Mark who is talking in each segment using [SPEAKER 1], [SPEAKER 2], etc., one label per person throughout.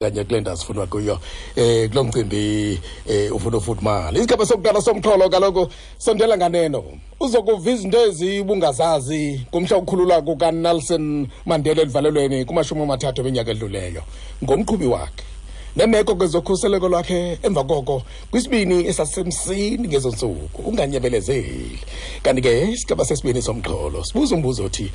[SPEAKER 1] Kanye kule ndawo sifunwa kuyo kulo mcimbi ufuna ufudumala. Isigaba sokuqala somxholo kaloku sondela nganeno uzokuva izinto ezibungazazi ngomhla wokukhululwa kukaNelson Mandela elivalelweni kuma-30 eminyaka edluleyo, ngomqhubi wakhe nemeko kwezokhuseleko lwakhe emva koko kwisibini esasemsini ngezo ntsuku. Unganyebelezeli. Kanti ke isigaba sesibini somxholo sibuza umbuzo othi: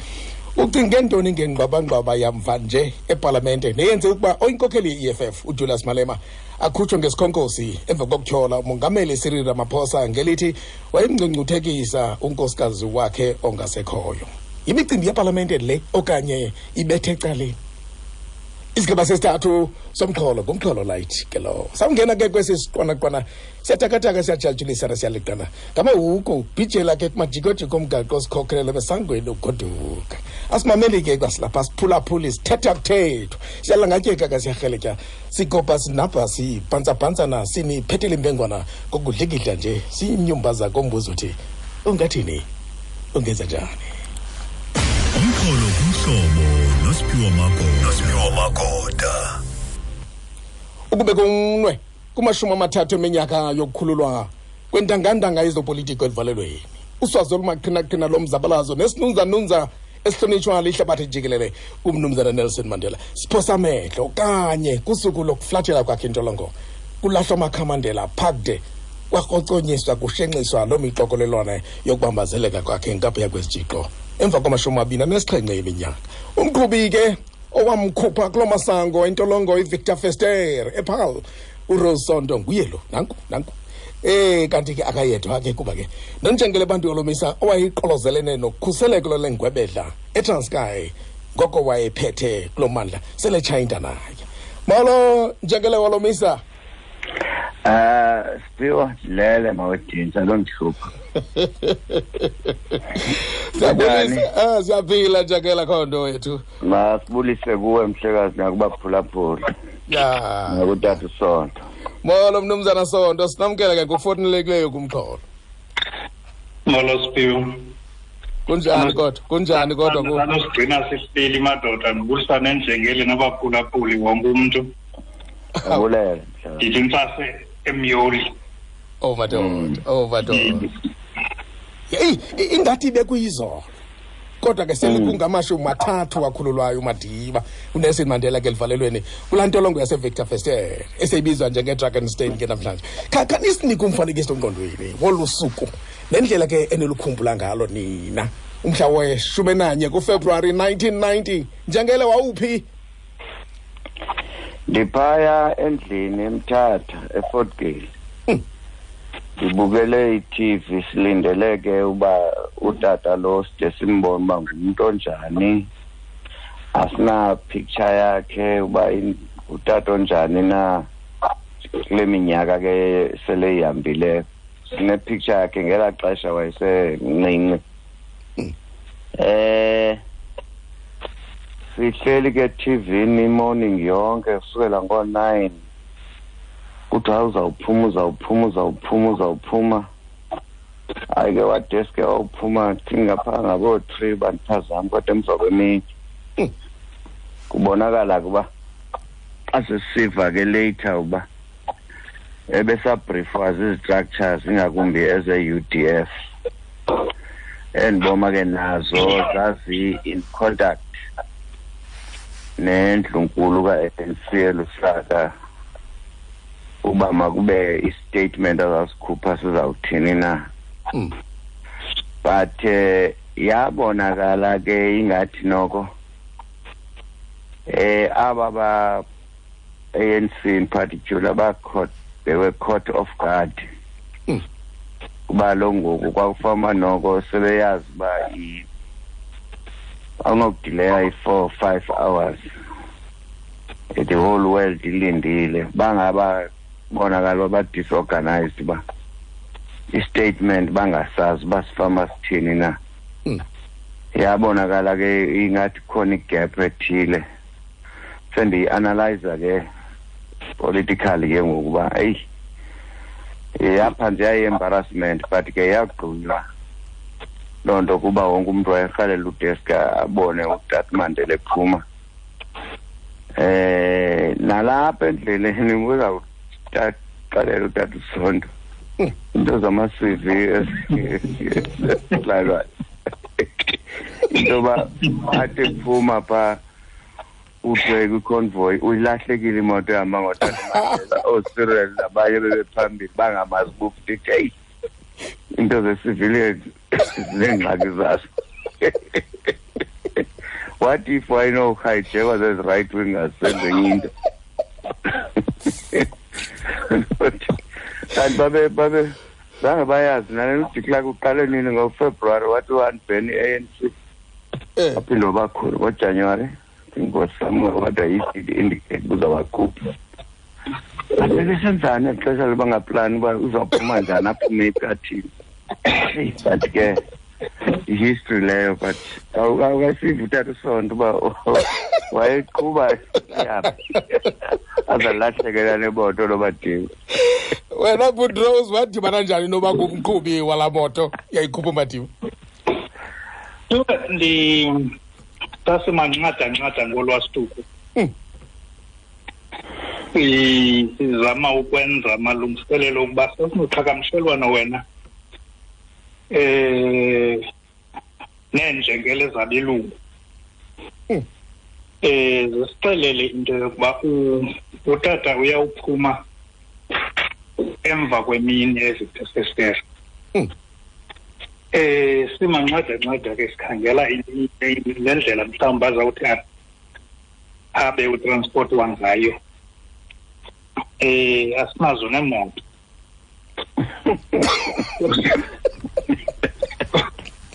[SPEAKER 1] ucinge ntoni ngengxwabangxwaba yamva nje epalamente neyenze ukuba oyinkokheli ye-EFF uJulius Malema akhutshwe ngesikhonkosi emva kokutyhola umongameli Cyril Ramaphosa ngelithi wayemngcungcuthekisa unkosikazi wakhe ongasekhoyo? Yimicimbi yepalamente le okanye ibethe ecaleni? Isigaba sesithathu somxholo ngumxholo light ke lowo. Sawungena ke kwesi siqwanaqwana, siyatakataka, siyajatshulisa, siyaliqana ngamahuku bhijela ke kumajikojiko omgaqo sikhokhelele besangweni ugoduka. Asimameli ke kwasilapha, siphulaphuli, sithetha kuthethwa, siyalangatyeka ke, siyarheletya, sigobha, sinabha, sibhantsabhantsana, siniphethele imbengwana ngokudlikidla nje, siyinyumba kombuzo uthi: ungathini, ungenza njani?
[SPEAKER 2] Umxholo kumhlobo noSiphiwo Magoda. Nosiphiwo Magoda.
[SPEAKER 1] Ukube kumnwe kuma-30 eminyaka yokukhululwa kwentangantanga yezopolitiko elivalelweni, uswazi olumaqhinaqhina lomzabalazo nesinunzanunza esihlonitshwa lihlabathi jikelele umnumzana Nelson Mandela, siphosa amehlo kanye kusuku lokuflathela kwakhe intolongo. Kulahlwa amakhamandela phakde, kwakroconyiswa, kushenxiswa loo mixokolelwane yokubambazeleka kwakhe ngaphaya kwesijixo emva kwama-27 eminyaka. Umqhubi ke owamkhupha kuloo masango entolongo iVictor Verster ePaarl, uRose Sonto, nguye lo. Nanku, nanku. Kanti ke akayedwa ke, kuba ke nonjengele bantu yolomisa owayiqolozelene nokhuseleko lengwebedla eTranskei ngoko wayephethe kulo mandla sele tshayinta naye. Molo, njengele wolomisa.
[SPEAKER 3] Siphiwo, ndilele mawedinsa londihlupha.
[SPEAKER 1] Siyabulisa, siyaphila njengela khondo wethu.
[SPEAKER 3] Masibulise kuwe mhlekazi nakubaphulaphula. Nakutata uSonto.
[SPEAKER 1] Molo mnumzana Sonto, sinamkela ke ngokufonelekileyo kumxholo.
[SPEAKER 4] Molo Siphiwo.
[SPEAKER 1] Kunjani kodwa? Kunjani kodwa ku?
[SPEAKER 4] Sanosigcina sisibili madoda, ndibulisa nenjengeli nabaphulaphuli, wonke umntu.
[SPEAKER 3] Abulela.
[SPEAKER 4] Ndithi ntsase emyoli.
[SPEAKER 1] Oh madoda, oh madoda. Hey, ingathi bekuyizolo. Kodwa ke sele kungama-30 wakhululwayo uMadiba uNelson Mandela ke elivalelweni kulaa ntolongo yaseVictor Verster eseyibizwa njengeDrakenstein ke namhlanje. Khanisinike umfanekiso engqondweni wolu suku nendlela ke enilukhumbula ngalo nina umhla we-11 kuFebruwari 1990. Njengele, wawuphi?
[SPEAKER 3] Ndiphaya endlini eMthatha, eFort Gale. Ndibukele i-TV, silindele ke uba utata lo side simbone uba ngumuntu onjani. Asina picture yakhe uba utata onjani na kule minyaka ke sele ihambile. Sine picture yakhe ngelaa xesha wayesemncinci. Sihleli ke TV ni morning yonke kusukela ngo-9. Kuthiwa uzawuphuma, uzawuphuma, uzawuphuma, uzawuphuma. Hayi ke, wadeske wawuphuma ngapha ngabo-3, bandiphazama, kodwa emva kwemini. Kubonakala kuba xa sesiva ke later uba ebesabriefwa zizi-structures, ingakumbi eze-UDF. Endiboma ke nazo zazi in contact nendlunkulu ka-ANC eLusaka uba makube i-statement azasikhupha sizawuthini na. But yabonakala ke ingathi noko aba ba ANC in particular ba caught, they were caught off guard. Kuba lo ngoku kwakufama noko sebeyazi uba awunokudileya i-4 5 hours, the whole world ilindile. Bangaba bonakala ba disorganized, ba i-statement bangasazi uba sifama sithini na. Yabonakala ke ingathi khona igap ethile. Sendiyi-analyza ke politically ke ngokuba eyi, yapha nje yayi-embarrassment, but ke yagqunywa loo nto kuba wonke umntu wayerhalela udeska abone uTat Mandela ephuma. Nalapha endleleni uzawuxelela utata uSonto into zama-CV esilalwayo into yoba athi phuma phaa uthe kwiconvoy uyilahlekile imoto ehamba ngotata Mandela, ooCyril nabanye bebephambili bangamazi uba heyi, into ze-civilian zineengxaki zazo. What if wayenohijekwa zezi right wingers senze enye into? Kanti babe zange bayazi nale uDe Klerk uqale nini ngoFebruary, wathi one-ban i-ANC. Waphinde wabakhulu ngoJanuwari, I think was somewhere, what I did indicate uzabakhupha. Bebesenzani exesha lobangaplani uba uzawuphuma njani, aphume iphi, athini? But ke history leyo, but awukasiva utata uSonto uba wayeqhuba yaphi azalahlekela nemoto loBadiba.
[SPEAKER 1] Wena Boutros, wadibana njani noba ngumqhubi walaa moto yayikhupha uMadiba?
[SPEAKER 4] Ndi sasimanxada-nxada ngolwasituku. Sizama ukwenza amalungiselelo ukuba sasinoqhagamshelwano wena neenjengele zabelungu. Zisixelele into yokuba utata uyawuphuma emva kwemini eziphesesere. Simanxada-nxada ke sikhangela le ndlela mhlawumbi azawuthi abe utransport wangayo. Asinazo neemoto.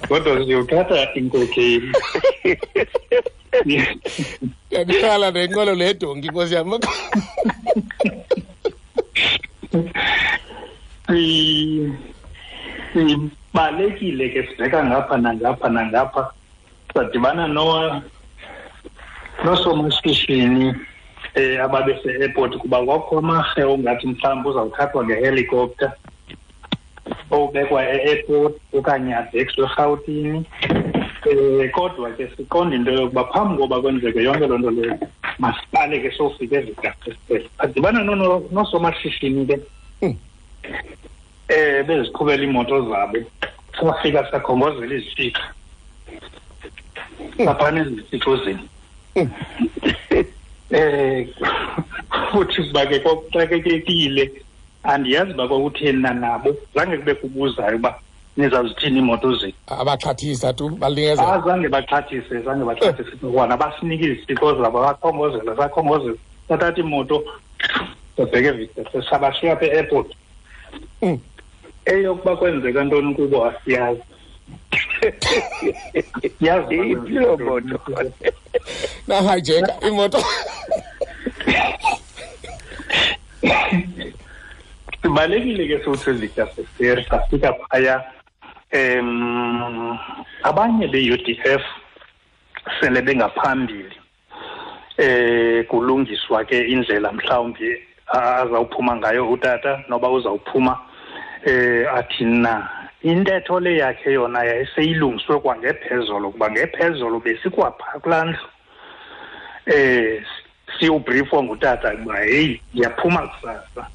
[SPEAKER 4] Kodwa siyothatha inkokheli.
[SPEAKER 1] Ndiyakhala nenqwelo ledonki, nkosi yam.
[SPEAKER 4] Sibalekile ke sibheka ngapha nangapha nangapha, sadibana noosomashishini ababese-airport, kuba kwakho amarhe ongathi mhlawumbi uzawuthathwa ngehelicopter owubekwa e-airport okanye abhekiswe eRhawutini. Kodwa ke siqonda into yokuba phambi koba kwenzeke yonke loo nto leyo, masiqale ke sofika eziDasesele. Sadibana noosomashishini ke beziqhubela iimoto zabo, safika sakhongozela izitshixo saphana ezitshixozini. Futhi kuba ke kwakuxakekekile, andiyazi uba kwakutheni na nabo, zange kube kubuzayo uba nizawuzithini iimoto zenu.
[SPEAKER 1] Abaxhathisa tu, balingezela.
[SPEAKER 4] Zange baxhathise, zange baxhathise kwana, basinike izitshixo zabo, bakhongozela, sakhongozela, sathatha imoto sabheka eVictor, sabashiya apha e-airport. Eyokuba kwenzeka ntoni kubo asiyazi. Yazi
[SPEAKER 3] iphi loo moto?
[SPEAKER 1] Nahijeka imoto.
[SPEAKER 4] Sibalekile ke sothi eVictor Verster, safika phaya. Abanye be-UDF sele bengaphambili. Kulungiswa ke indlela mhlawumbi azawuphuma ngayo utata, noba uzawuphuma athi na. Intetho le yakhe yona yayiseyilungiswe kwangephezolo, kuba ngephezolo besikwapha kulaa ndlu. Siyawubriefwa ngutata ukuba heyi, ndiyaphuma kusasa.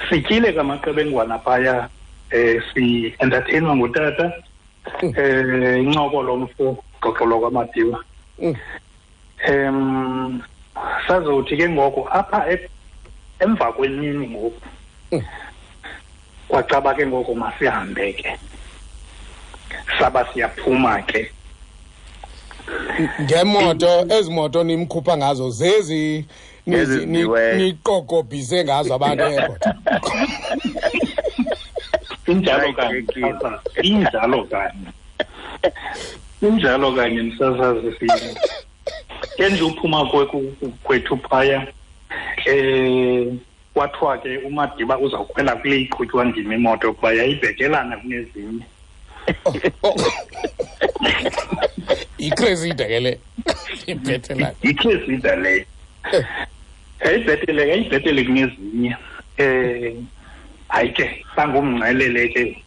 [SPEAKER 4] Sityile kamaqebengwana phaya, si-entertainwa ngutata. Incoko lomfo, xoxo lokwaMadiba. Sazothi ke ngoku apha emva kwemini ngoku, kwacaba ke ngoku masihambe ke, saba siyaphuma ke.
[SPEAKER 1] Ngemoto, ezi moto nimkhupha ngazo zezi niqokobhise ngazo abantu e-airport.
[SPEAKER 4] Injalo kanye, injalo kanye, injalo kanye msasazi sini. Ke nje uphuma kwethu phaya, kwathiwa ke uMadiba uzawukhwela kule iqhutywa ndim imoto kuba yayibhekelana kunezinye.
[SPEAKER 1] Yicresida ke le. Ibhetelana.
[SPEAKER 4] Yicresida le. Yayibhetele, yayibhetele kunezinye. Hayi ke, sangumngcelele ke.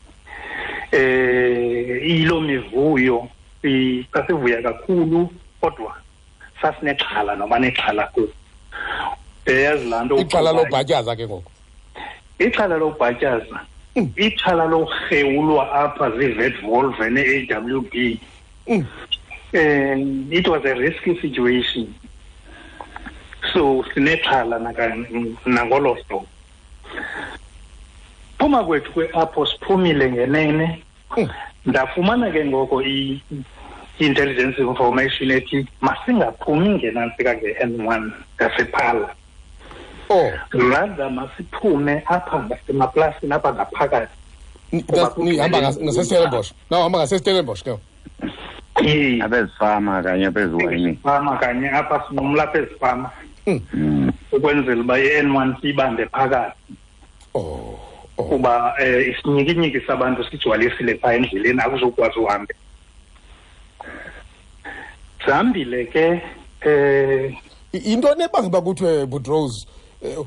[SPEAKER 4] Iyiloo mivuyo Sasivuya kakhulu, kodwa sasinexhala noba nexhala kuyo. Yazi laa nto,
[SPEAKER 1] Ixhala lobhatyaza ke ngoku.
[SPEAKER 4] Ixhala lobhatyaza, ixhala lorhewulwa apha zii-vet Volvo ne-AWB. It was a risky situation, so sinexhala nangolo hlobo. Phuma kwethu kwe-apho siphumile ngenene, ndafumana ke ngoko i-intelligence information ethi masingaphumi ngenantsika nge-N1 ngasePhala, rather masiphume apha ngasemaplasini, apha ngaphakathi.
[SPEAKER 1] Nihamba ngaseStellenbosch, nawuhamba ngaseStellenbosch ke?
[SPEAKER 3] Apha ezifama kanye, apha eziwayini.
[SPEAKER 4] Fama kanye apha, sinqumla apha ezifama ukwenzela uba i-N1 siyibambe phakathi, kuba isinyikinyiki sabantu sigcwalisile phaa endleleni, akuzokwazi uhambe. Sihambile ke.
[SPEAKER 1] Into nebanga uba kuthiwe Butrose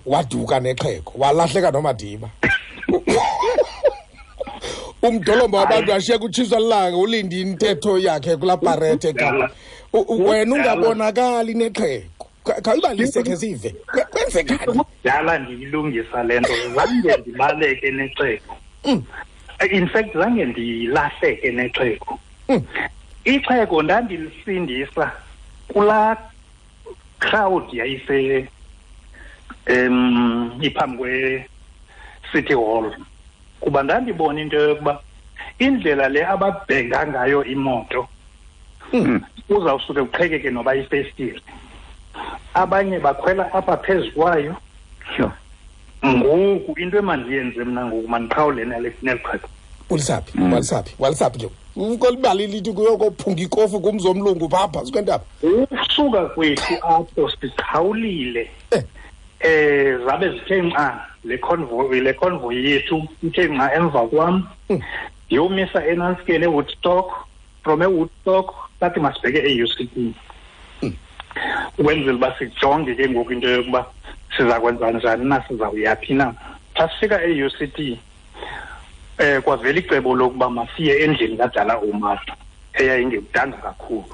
[SPEAKER 1] waduka nexhego, walahleka noMadiba, umdolomba wabantu ashiye kutshiswa lilanga, ulinde intetho yakhe kulaa parethe eKapa, wena ungabonakali nexhego. Khawuyibalise khe sive, kwenzekani?
[SPEAKER 4] Kudala ndiyilungisa le nto. Zange ndibaleke nexhego. In fact, zange ndilahleke nexhego. Ixhego ndandilisindisa kulaa crowd yayise iphambi kwe-City Hall, kuba ndandibona into yokuba indlela le ababhenga ngayo imoto, uzawusuke kuqhekeke noba ifestile, abanye bakhwela apha phezu kwayo. Ngoku into emandiyenze mna ngoku, mandiqhawule neli xhego.
[SPEAKER 1] Ulisaphi? Walisaphi? Walisaphi ke kolibali lithi kuyokophunga ikofu kumzi omlungu phaa phantsi kwentaba?
[SPEAKER 4] Usuka kwethu apho siqhawulile, zabe zithe nca le convoy yethu, ithe nca emva kwam. Ndiyomisa enantsikeni eWoodstock. From eWoodstock sathi masibheke e-UCT, ukwenzela uba sijonge ke ngoku into yokuba siza kwenza njani na, sizawuyaphi na. Xa sifika e-UCT, kwavela icebo lokuba masiye endlini kaDala Omar eyayingekudanga kakhulu.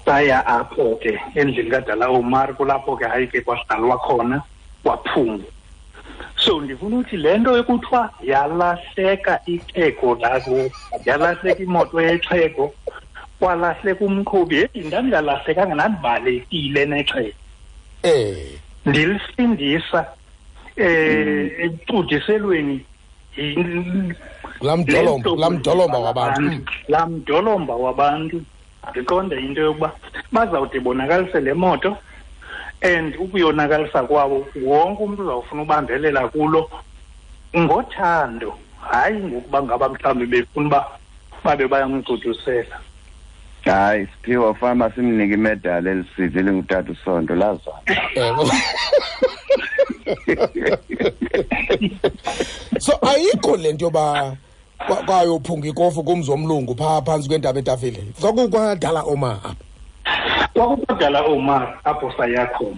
[SPEAKER 4] Saya apho ke endlini kaDala Omar, kulapho ke hayi ke kwahlalwa khona, kwaphungwa. So ndifuna ukuthi le nto ekuthiwa yalahleka ixhego lako, yalahleka imoto yexhego, kwalahleka umqhubi, heyi, ndandingalahlekanga, ndandibalekile nexhego. Ndilisindisa ekucudiselweni.
[SPEAKER 1] Laa mdolomba wabantu.
[SPEAKER 4] Laa mdolomba wabantu, ndiqonde into yokuba bazawude bonakalise le moto, and ukuyonakalisa kwabo wonke umntu uzawufuna ubambelela kulo ngothando, hayi ngokuba ngaba mhlawumbi befuna uba babe bayamcudusela.
[SPEAKER 3] Hayi Siphiwo, fama simnike imedali elisivi elingutata uSonto lazana.
[SPEAKER 1] So ayikho le nto yoba kwayophunga ikofu kumzi omlungu phaa phantsi kwentaba etafile, kwakukwadala Omar apha?
[SPEAKER 4] Kwakukwadala Omar apho saya khona.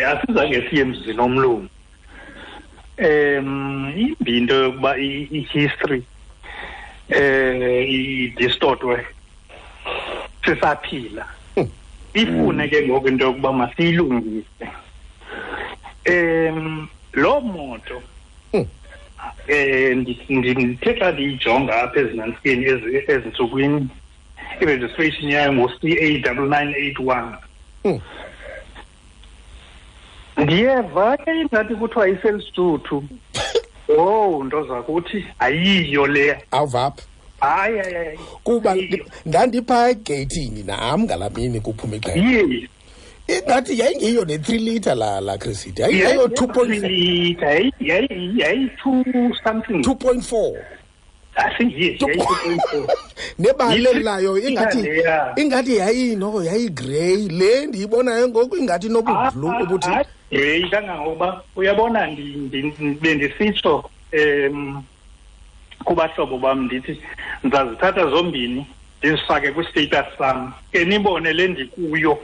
[SPEAKER 4] Asizange siye emzini omlungu. Imbi into yokuba i-history idistortwe sisaphila. Ifune ke ngoku into yokuba masiyilungise. Loo moto, ndithe xa ndiyijonga apha ezinantsikeni ezintsukwini, i-registration yayo ngu-CA 9981. Ndiyeva ke ingathi kuthiwa iselisuthu. Oh, nto zakuthi, ayiyo leya.
[SPEAKER 1] Awuvaphi?
[SPEAKER 4] Hayi, hayi, hayi.
[SPEAKER 1] Kuba ndandiphaa egeyithini nam ngalaa mini kuphuma ixhego. Ingathi yayingeyiyo ne-3 litre la Cressida, yayiyo 2.4.
[SPEAKER 4] Litre yayi-two something.
[SPEAKER 1] 2.4.
[SPEAKER 4] I think yes, yayi-2.4.
[SPEAKER 1] Nebala layo ingathi
[SPEAKER 4] Leya.
[SPEAKER 1] ingathi yayinoko yayigrey, le ndiyibonayo ngoku ingathi nobublue obuthi.
[SPEAKER 4] Grey kangangokuba uyabona, bendisitsho kubahlobo bam, ndithi ndizazithatha zombini ndizifake kwi-status sam, ke nibone le ndikuyo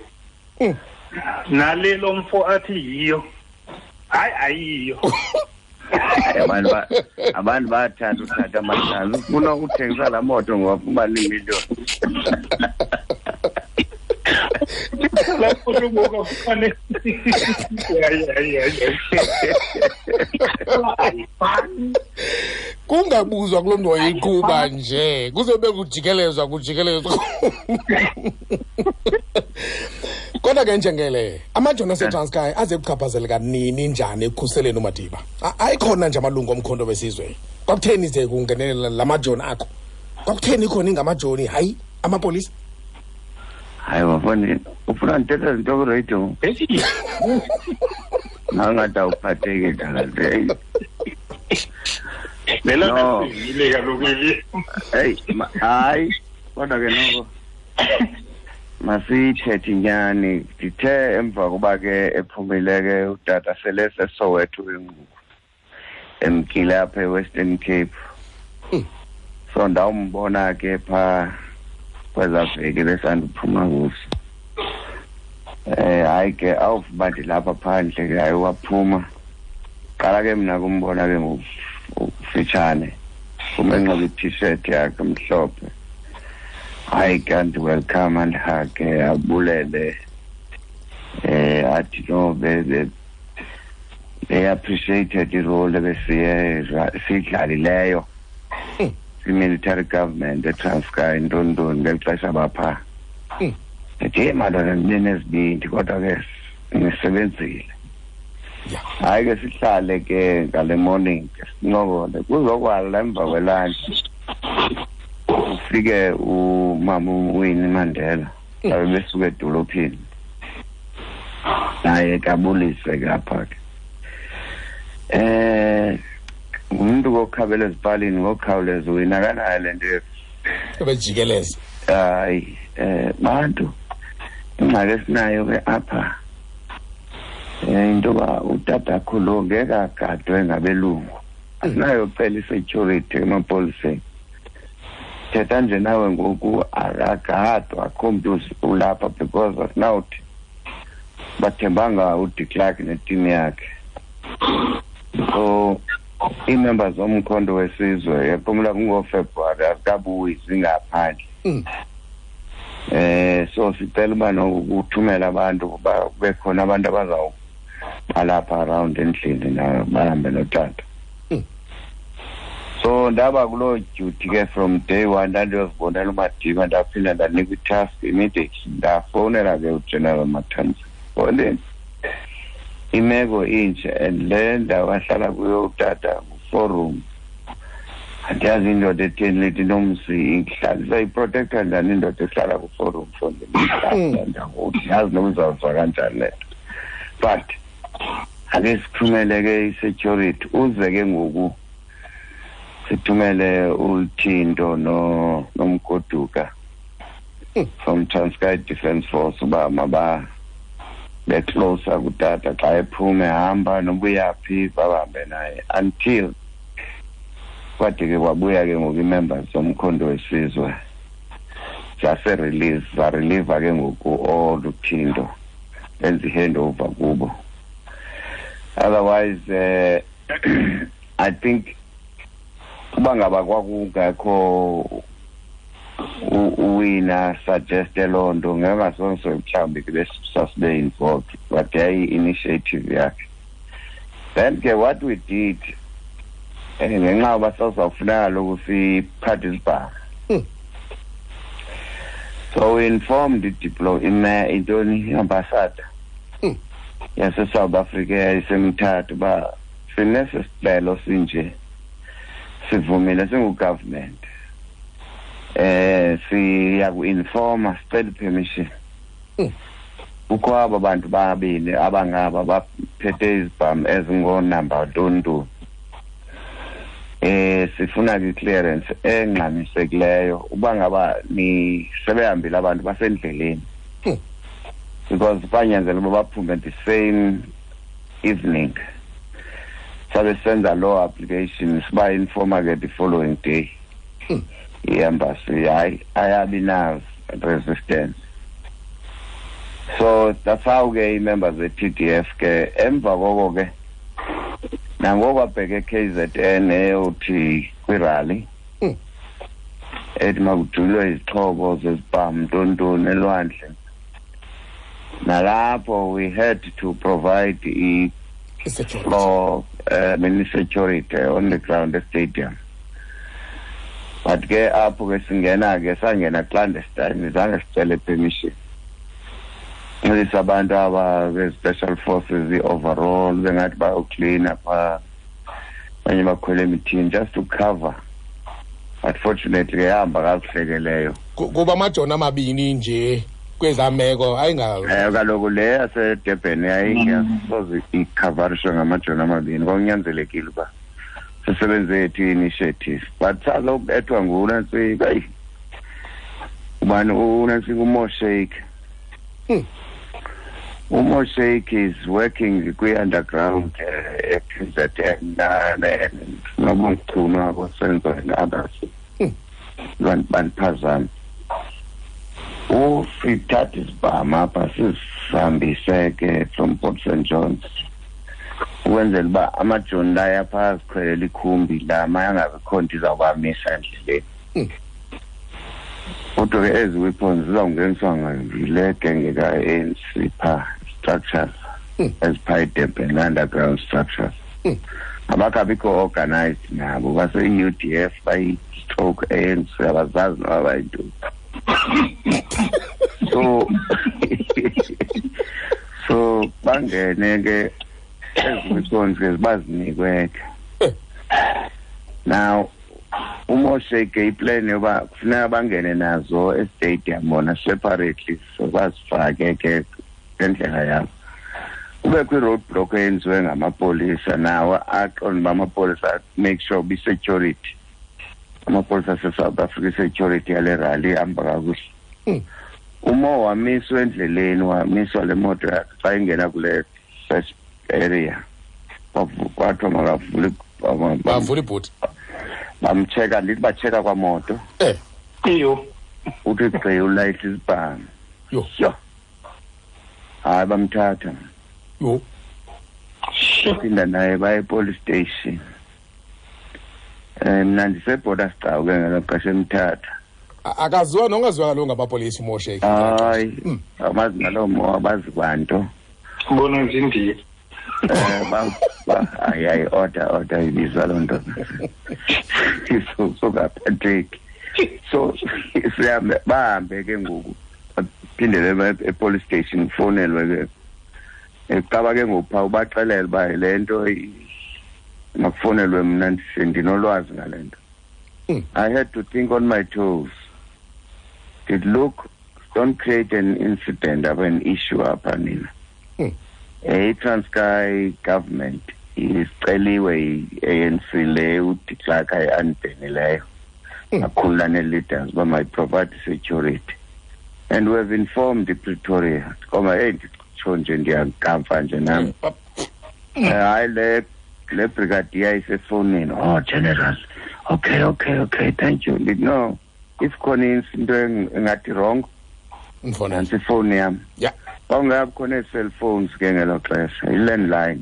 [SPEAKER 4] nale lo mfo athi yiyo. Hayi, ayiyo.
[SPEAKER 3] Abantu bayathanda uthatha amatshansi. Ufuna ukuthengisa laa moto ngoba ufumana iimiliyoni.
[SPEAKER 4] Laa moto ngoku afumane. Ayifani.
[SPEAKER 1] Kungabuzwa kulo mntu wayeyiqhuba nje, kuzobe kujikelezwa. Kodwa ke njengele, amajoni aseTranskei aze kuchaphazeleka nini njani ekukhuseleni uMadiba? Ayikhona nje amalungu omkhonto wesizwe. Kwakutheni ze kungenelela la majoni akho? Kwakutheni khona ingamajoni, hayi amapolisa?
[SPEAKER 3] Hayi bafoni, ufuna ndithethe zinto kwiradio? Nangathi awuphatheki dala.
[SPEAKER 4] Lelo ile kaloku eli.
[SPEAKER 3] Hey, hayi, kodwa ke noko masiyithethe inyani. Ndithe emva koba ke ephumile ke utata sele seSoweto ke ngoku, emkile apha eWestern Cape. So ndawumbona ke phaa kwezaa veki besandiphuma kuzo. Hayi ke awuva ndilapha phandle ke, hayi waphuma. Qala ke mna kumbona ke ngokufitshane, umenxiba i-T-shirt yakhe mhlophe. Hayi ke andiwelcome andihage abulele, athi no they appreciated i-role ebesiye siyidlalileyo i-military government eTranskei ntontoni ngeli xesha bapha. Ndithi hey madoda, ndibe nezibindi kodwa ke nisebenzile. Hayi ke sihlale ke ngale morning ke sincokole, kuzokwala emva kwelantshi ufike umama uWinnie Mandela babe besuka edolophini, naye ke abulise ke apha ke. Ngumntu kokhabela ezipalini ngokukhawuleza uwina akanayo le nto
[SPEAKER 1] ebejikeleza.
[SPEAKER 3] Hayi, bantu ingxaki esinayo ke apha into yoba utatakho lo ngeke agadwe ngabelungu. Asinayo kucela i-security emapoliseni. Thetha nje nawe ngoku akagadwa, akho mntu ulapha because asinawuthi bathembanga uDe Klerk neteam yakhe. So ii-members zomkhonto wesizwe yaphumula kungoFebruwari azikabuyi zingaphandle. So sicela uba nokuthumela abantu ukuba kube khona abantu abazawubalapha around endlini na bahambe notata. So ndaba kuloo duty ke from day one, ndandiyozibonela uMadiba, ndaphinda ndanikwa i-task immediately. Ndafowunela ke uGeneral Matanzima. Fowuneni, imeko inje and le ndawo ahlala kuyo utata ngu-four room. Andiyazi indoda etheni lethi nomzi ihlala iprotecta njani indoda ehlala ku-four room fondini. Yazi noba uzawuva kanjani le nto. But ake sithumele ke i-security, uze ke ngoku sithumele uThinto noMgoduka from Transkei Defence Force uba maba becloser kutata xa ephume ehamba noba uyaphi bahambe naye until kwade ke kwabuya ke ngoku ii-members zomkhonto wesizwe zase-release, zareliva ke ngoku all uThinto, benza i-handover kubo. Otherwise I think uba ngaba kwakungekho uwina suggeste loo nto ngengasonso mhlawumbi ke besasibe involved, but yayi-initiative yakhe. Then ke what we did, ngenxa yoba sasizawufuneka kaloku siphathe isibhamu. So we informed intoni i-ambassador yase-South Africa yayisemthatha uba sinesi sicelo sinje, sivumile singu-government. Siya ku-informa, sicela i-permission. Kukho aba bantu babini abangaba baphethe izibhamu ezingoonamba ntontoni. Sifuna ke clearance engxamisekileyo uba ngaba ni sebehambile abantu basendleleni. Because banyanzela uba baphume the same evening. Sabe senza loo application, siba informa ke the following day. I-embassy hayi ayabi na resistance. So that's how ke ii-members ze-TDF ke emva koko ke Nangoku abheke KZN eyothi kwirally ethi makujulwe izixhobo zezibhamu ntontoni elwandle. Nalapho we had to provide i-floor security on the ground stadium. But ke apho ke singena ke sangena clandestine, zange sicele permission. Ncedisa abantu aba be-special forces i-overall bengathi bayoklina phaa, abanye bakhwele emithini just to cover. But fortunately yahamba kakuhle ke leyo.
[SPEAKER 1] Kuba amajoni amabini nje kwezaa meko ayinga
[SPEAKER 3] Kaloku le yaseDurban yayingasoze ikhavarishwe ngamajoni amabini, kwakunyanzelekile uba sisebenze yethu i-initiative. But salokubethwa nguNantsika, eyi ubani uNantsika uMoshake. UMoshake is working kwi-underground e-KZN nobuchunu abosenzo and others. Bandiphazame. Usithatha isibhamu apha sisihambise ke from Port St Johns ukwenzela uba amajoni layo apha azikhwelela ikhumbi la mayangabikho nto izawubamisa endleleni. Kodwa ke ezi weapons zizawungeniswa yile genge ka-ANC phaa, structures eziphaa eDurban, underground structures. Abakabikho organized nabo, base-UDF bayi-stroke ANC, abazazi noba bayintoni. So bangene ke ezi weapons ke bazinikwe ke. Now uMoshake iplan yoba kufuneka bangene nazo estadium bona separately, so bazifake ke ngendlela yabo. Kubekho i-road block eyenziwe ngamapolisa nawo aqonda uba amapolisa make sure be-security. Amapolisa ase-South Africa security yale rally ihamba kakuhle. Umo wamiswa endleleni, wamiswa le moto yakhe xa ingena kule first area. Kwathiwa makavule
[SPEAKER 1] bavule ibhuti.
[SPEAKER 3] Bamcheka, ndithi bacheka kwamoto.
[SPEAKER 4] Iyo.
[SPEAKER 3] Uthi gqi ulayitha isibhamu.
[SPEAKER 1] Yho.
[SPEAKER 3] Yho. Hayi bamthatha.
[SPEAKER 1] Yho.
[SPEAKER 3] Phinda naye baye police station. Mna ndisebhoda sigcawu ke ngelo xesha emthatha.
[SPEAKER 1] Akaziwa nongaziwa kaloku ngabapolisi uMoshake.
[SPEAKER 3] Hayi, abazi naloo mo, abazi kwanto.
[SPEAKER 4] Bona nje indiya.
[SPEAKER 3] Hayi, order ibizwa loo nto. So kaphatheki. So sihambe bahambe ke ngoku. Baphindele e-police station kufonelwe ke. Eqaba ke ngoku phaa ubaxelele uba le nto makufonelwe mna ndinolwazi ngale nto. I had to think on my toes. Did look, don't create an incident of an issue apha nina. I-Transkei government isiceliwe i-ANC le uDe Klerk ayi-unbhenileyo. Akhulula nee-leaders uba mayi-provide security. And we have informed Pretoria. Koma, hey, nditsho nje ndiyakamfa nje nam. Hayi le brigadier isefowunini. Oh, general. Okay, thank you. No, if khona into engathi wrong, nantsi ifowuni yam.
[SPEAKER 1] Yeah.
[SPEAKER 3] Kwakungekho khona ii-cellphones ke ngelo xesha, i-landline.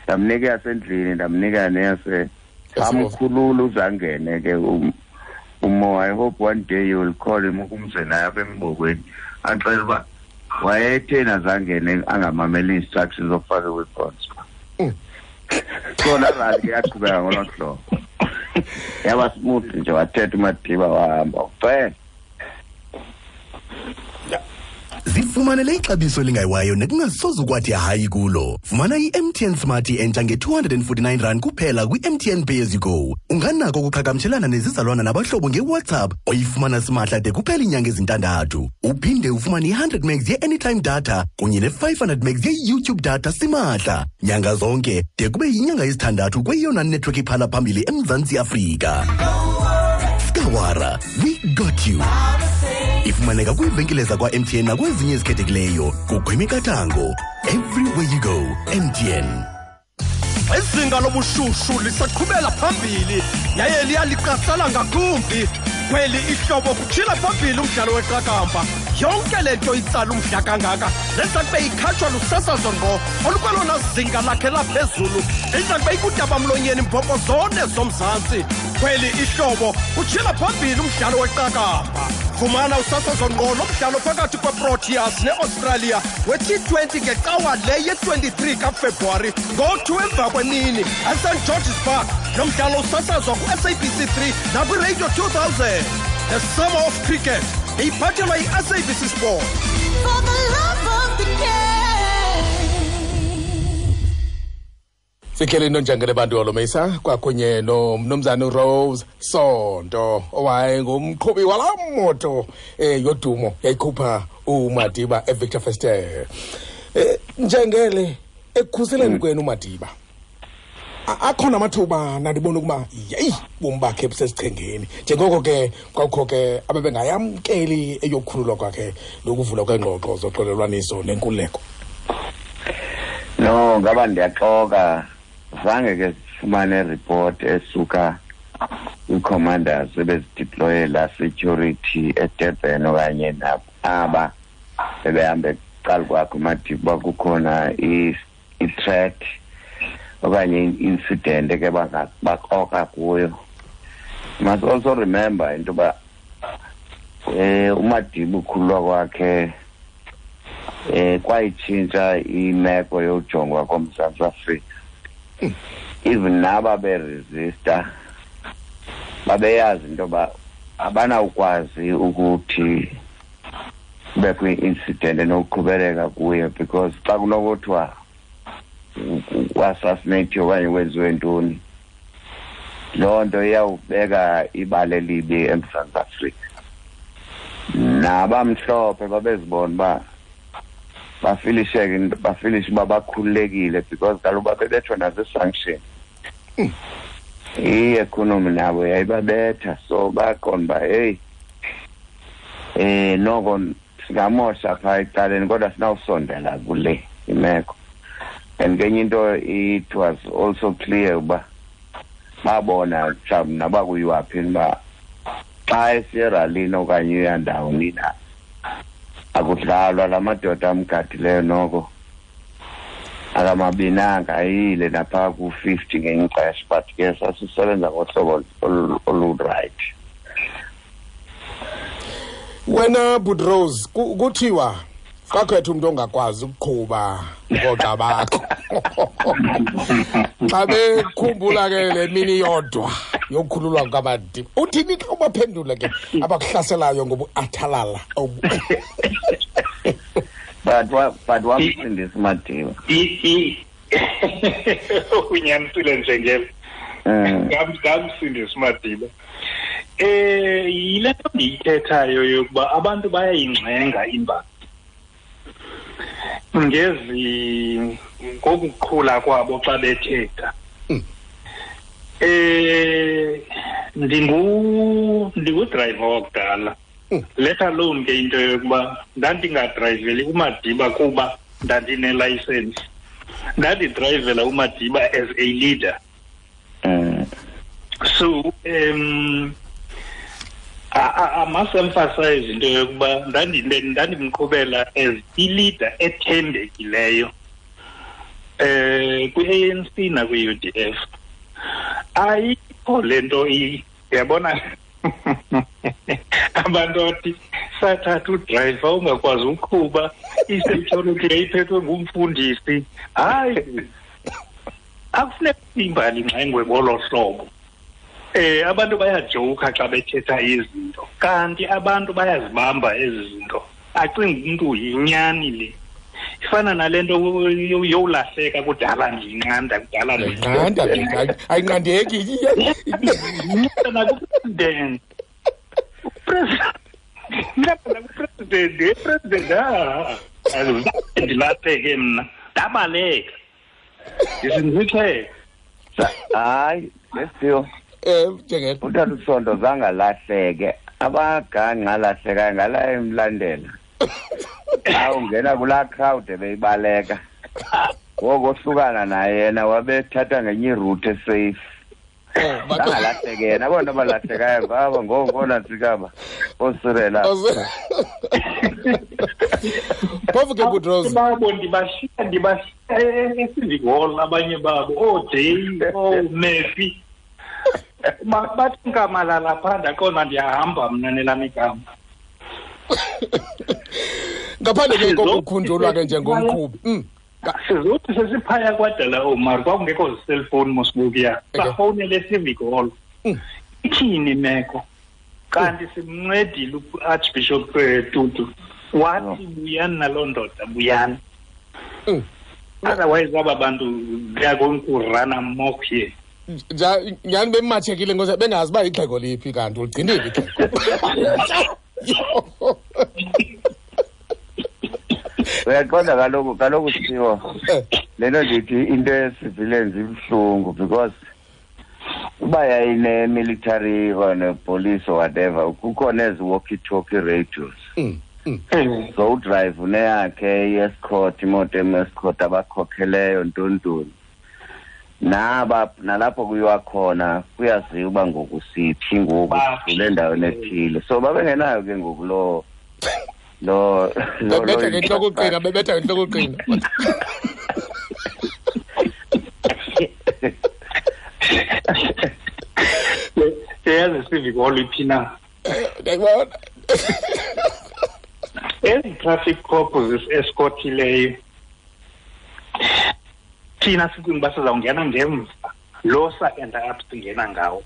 [SPEAKER 3] Ndamnika eyasendlini, ndamnika neyase amkhulula uzangene ke uMo. I hope one day you will call him ukumze naye apha embokweni axele uba wayetheni azangene angamameli instructions zokufaka i-weapons. So laa rally ke yaqhubeka ngolo hlobo. Yaba smooth nje, wathetha uMadiba wahamba ucela.
[SPEAKER 2] Zifumanele ixabiso elingayiwayo nekungasoze ukwathi hayi kulo. Fumana i-MTN Smart entsha nge-249 rand kuphela kwi-MTN Pay as you go. Unganako ukuqhagamshelana nezizalwana nabahlobo nge-WhatsApp oyifumana simahla de kuphela iinyanga ezintandathu. Uphinde ufumane i-100 megs ye-anytime data kunye ne-500 megs ye-YouTube data simahla nyanga zonke de kube yinyanga yesithandathu kweyona network iphala phambili eMzantsi Afrika. Skawara, we got you. Ifumaneka kwiivenkile zakwa-MTN nakwezinye ezikhethekileyo kukho imiqathango. Everywhere you go, MTN.
[SPEAKER 5] Izinga lobushushu lisaqhubela phambili yaye liyaliqasela ngakumbi. Kweli ihlobo kutshila phambili umdlalo weqakamba. Yonke le nto itsala umdla kangaka neza kube ikhatshwa lusasazo ngqo olukwelona zinga lakhe laphezulu, iza kube ikudabamlonyeni mbhoko zone zoMzantsi. Kweli ihlobo utshila phambili umdlalo weqakamba. Fumana usasazo ngqo lomdlalo phakathi kweProteas neAustralia we-T20 ngecawa le ye-23 kaFebruwari ngo-2 emva kwemini eSt George's Park. Lo mdlalo usasazwa ku-SABC 3 nakwiRadio 2000. The Summer of Cricket iphathelwa yi-SABC Sport.
[SPEAKER 6] For the love of the game.
[SPEAKER 1] Sikhele inonjangele bantu Holomisa kwakunye nomnumzana Rose Sonto owayengumqhubi walaa moto yodumo yayikhupha uMadiba eVictor Verster. Njengele ekukhuseleni kwenu uMadiba, akhona amathuba nandibona ukuba yeyi bomi bakhe busesichengeni, njengoko ke kwakukho ke abebengayamkeli eyokukhululwa kwakhe nokuvulwa kweengxoxo zoxolelwaniso nenkululeko.
[SPEAKER 3] No, ngaba ndiyaxoka, zange ke sifumane report esuka kwi-commanders ebezideploye la security eDurban okanye aba bebehambe kuqala kwakhe uMadiba, kukhona i-threat okanye i-incident eke bakroka kuyo. Must also remember into yoba uMadiba ukhululwa kwakhe kwayitshintsha imeko yojongwa koMzantsi Afrika. Even naba beresista babeyazi into yoba abanawukwazi ukuthi kubekho i-incident enokuqhubeleka kuye, because xa kunokuthiwa u-assassinate okanye kwenziwe ntoni, loo nto iyawubeka ibala elibi eMzantsi Afrika. Nabamhlophe babezibona uba bafilisheke, bafilishe uba bakhululekile, because kaloku babebethwa nazi-sanction. I-economy nabo yayibabetha, so baqonda uba heyi noko singamosha phaa ecaleni kodwa sinawusondela kule imeko. And kenye into, it was also clear uba babona mhlawumbi noba kuyiwaphi uba xa esiyeralini okanye uyandawoni na akudlalwa, la madoda amgadileyo noko akamabinanga ayile naphaa ku-50 ngenye ixesha, but ke sasisebenza ngohlobo olurayithi.
[SPEAKER 1] Wena Budrose, kuthiwa kwakhetha umntu ongakwazi ukuqhuba ngoogxa bakho. Xa bekhumbula ke le mini yodwa yokukhululwa kukaMadiba, uthini xa ubaphendula ke abakuhlaselayo ngobuathalala?
[SPEAKER 3] But wamsindisa uMadiba.
[SPEAKER 4] Unyanisile Njengele. Ngamsindisa uMadiba. Yile nto ndiyithethayo yokuba abantu bayayingxenga imbali ngezi ngokuqhula kwabo xa bethetha. Ndingudrayiva wakudala. Let alone ke into yokuba ndandingadrayiveli uMadiba kuba ndandinelayisensi. Ndandidrayivela uMadiba as a leader. So I must emphasize into yokuba ndandimqhubela as i-leader ethembekileyo kwi-ANC nakwi-UDF. Ayikho le nto yabona abantu athi sathatha udrayiva ungakwazi uqhuba, i-security yayiphethwe ngumfundisi. Hayi, akufuneki imbali ingxengwe ngolo hlobo. Abantu bayajoka xa bethetha izinto, kanti abantu bayazibamba ezi zinto. Acinga umntu yinyani le. Ifana nale nto yowulahleka kudala ndiyinqanda, kudala
[SPEAKER 1] ndiyinqanda, ayinqandeki.
[SPEAKER 4] Nakupresident. Nakupresident, president, ndilahleke mna, ndabaleka. Ndisindixele.
[SPEAKER 3] Hayi, lesiphiwo.
[SPEAKER 1] Njengele.
[SPEAKER 3] Utata uSonto zange alahleke, abaganga alahlekayo ngala emlandela. Xa ungena kulaa crowd ebeyibaleka, ngoku ohlukana naye yena wabethatha ngenye iroute esafe. Bangalahleki yena, abona abalahlekayo ngaba ngoonantsikaba oosirela.
[SPEAKER 1] Phofu ke Butros,
[SPEAKER 4] babo ndibashiya eCivic Hall abanye babo, ooJay, ooMurphy. Bathi nkamalala phaa, ndaqonda ndiyahamba mna nelam igama.
[SPEAKER 1] Ngaphandle ke kokukhunjulwa ke njengomqhubi.
[SPEAKER 4] Sizothi sesiphaya kwadala Omar, kwakungekho zi-cellphone mosibukuya. Safowunele eCivic Hall. Ithini imeko? Kanti simncedile u-Archbishop Tutu. Wathi buyani naloo ndoda, buyani. Otherwise aba bantu they are going to run amok here.
[SPEAKER 1] Nyhani bematshekile ngoba bengazi uba ixhego liphi kanti uligcinile ixhego.
[SPEAKER 3] Uyaqonda kaloku Siphiwo, le nto ndithi into ye-civilians ibuhlungu because uba yayine-military or ne-police or whatever, kukhona ezi walkie-talkie radios. So udrive uneyakhe i-escort, imoto em-escort abakhokheleyo ntontoni. Naba nalapho kuyiwa khona kuyaziwa uba ngoku siphi ngoku kule endaweni ethile. So babengenayo ke ngoku lo
[SPEAKER 1] bebetha ngentloko uqina, bebetha ngentloko uqina.
[SPEAKER 4] Yazi Civic Hall iphi na?
[SPEAKER 1] Ndiyakubona.
[SPEAKER 4] Ezi traffic cop zisi-escortileyo thina sicinga uba sizawungena ngemva, lo sa-enda up singena ngawo.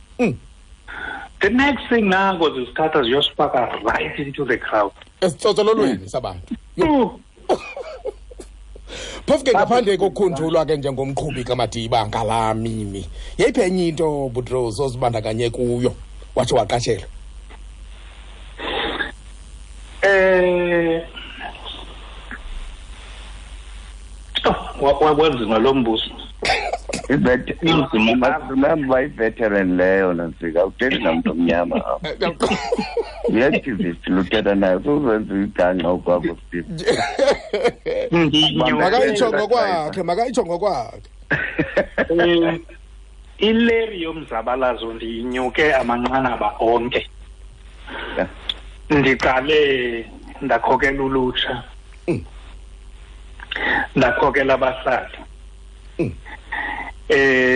[SPEAKER 4] The next thing nako zisithatha ziyosifaka right into the crowd.
[SPEAKER 1] Esitsotsololweni sabantu. Phofu ke ngaphandle kokukhunjulwa ke njengomqhubi kaMadiba ngalaa mini, yeyiphi enye into Butros ozibandakanye kuyo watsho waqashelwa?
[SPEAKER 4] Wanzima lo mbuso.
[SPEAKER 3] Remember i-veteran leyo nantsika, awuthethi namntu omnyama apha. I-activist luthetha nayo, suzenza igangxa okwakho Steve.
[SPEAKER 1] Makayitsho ngokwakhe, makayitsho ngokwakhe.
[SPEAKER 4] Ileri yomzabalazo ndiyinyuke amanqanaba onke. Ndiqale ndakhokela ulutsha. Ndakhokela abahlali.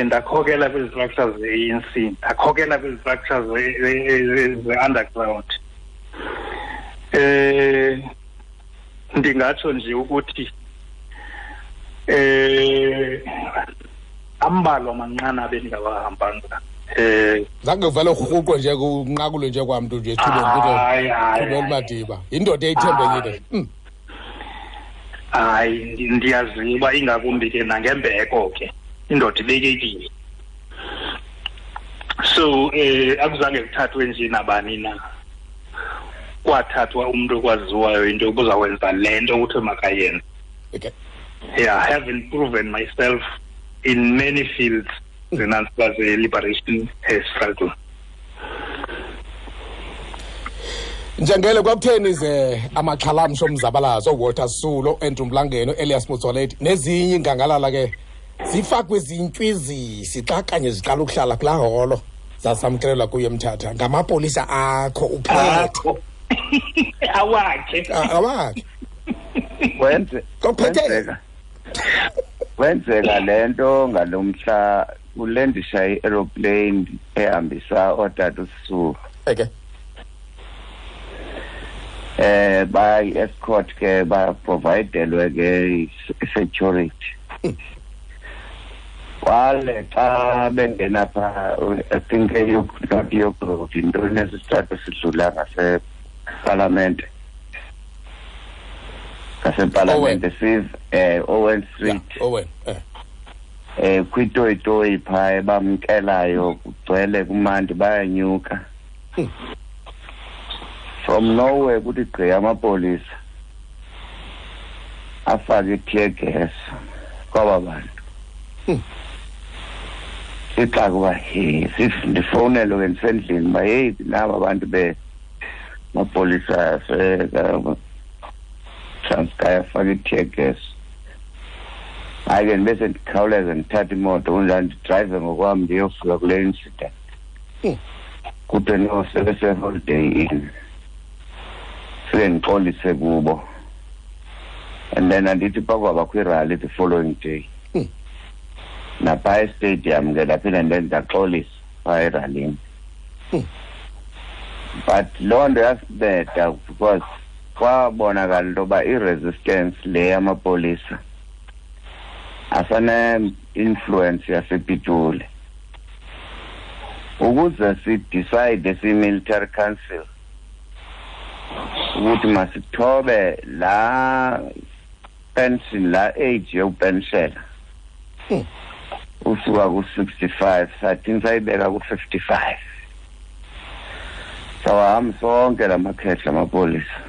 [SPEAKER 4] Ndakhokela kwi-structures ze-ANC, ndakhokela kwi-structures ze-underground. Ndingatsho nje ukuthi ambalwa amanqanaba endingawahambanga.
[SPEAKER 1] Zange uvele urhuqwe nje kunqakulwe nje kwamntu nje ethubeni kuthiwe Madiba. Yindoda eyithembekile.
[SPEAKER 4] Hayi, ndiyaziwa ingakumbi ke nangembeko ke. Indoda ibekekile. So akuzange kuthathwe nje nabani na. Kwathathwa umuntu okwaziwayo into yokuzawenza le nto kuthiwe makayenze.
[SPEAKER 1] Okay.
[SPEAKER 4] Yeah, I haven't proven myself in many fields the liberation struggle.
[SPEAKER 1] Njengele kwakutheni ze amaxhalamsho omzabalazo Walter Sisulu, Andrew Mlangeni, Elias Motsoaledi nezinye ingangalala ke zifakwe izintywizisi xa kanye ziqala ukuhlala kulaa holo zasamkelelwa kuyo eMthatha ngamapolisa akho uphethe.
[SPEAKER 4] Awakhe.
[SPEAKER 1] Awakhe.
[SPEAKER 3] Kwenzeka le nto ngalomhla kulendisha i-aeroplane ehambisa ootata uSisulu.
[SPEAKER 1] Okay.
[SPEAKER 3] By escort ke baprovidelwe ke security. Kwale xa bengena pha, I think not yokuthi into nesithathu sidlula ngasepalamente. Ngasepalamente sive Owen Street.
[SPEAKER 1] Yeah, Owen.
[SPEAKER 3] Kwitoyitoyi pha ebamkelayo kugcwele kumandi bayanyuka. From nowhere kuthi gqi amapolisa afake i-tear gas kwaba bantu. Sixaka uba he ndifowunelwe ke ndisendlini uba heyi naba abantu bemapolisa aseTranskei afake i-tear gas. Hayi ke, ndibe sendikhawuleza ndithatha imoto kunjani, ndidrayive ngokwam, ndiyofika kule incident. Kuthiwe no, sebese-Holiday Inn. Fike ndixolise kubo, and then andithi pakwabakho irally the following day naphaa estadium ke, ndaphinda ndaxolisa phaa eralini. But loo nto yasinceda because kwabonakala into yoba i-resistance le yamapolisa asane-influence yasePitoli, ukuze sidecide siyi-military council ukuthi masithobe laa pension, laa age yokupenshela usuka ku-65, sathini, sayibeka ku-55. Sawahamba sonke la makhehla amapolisa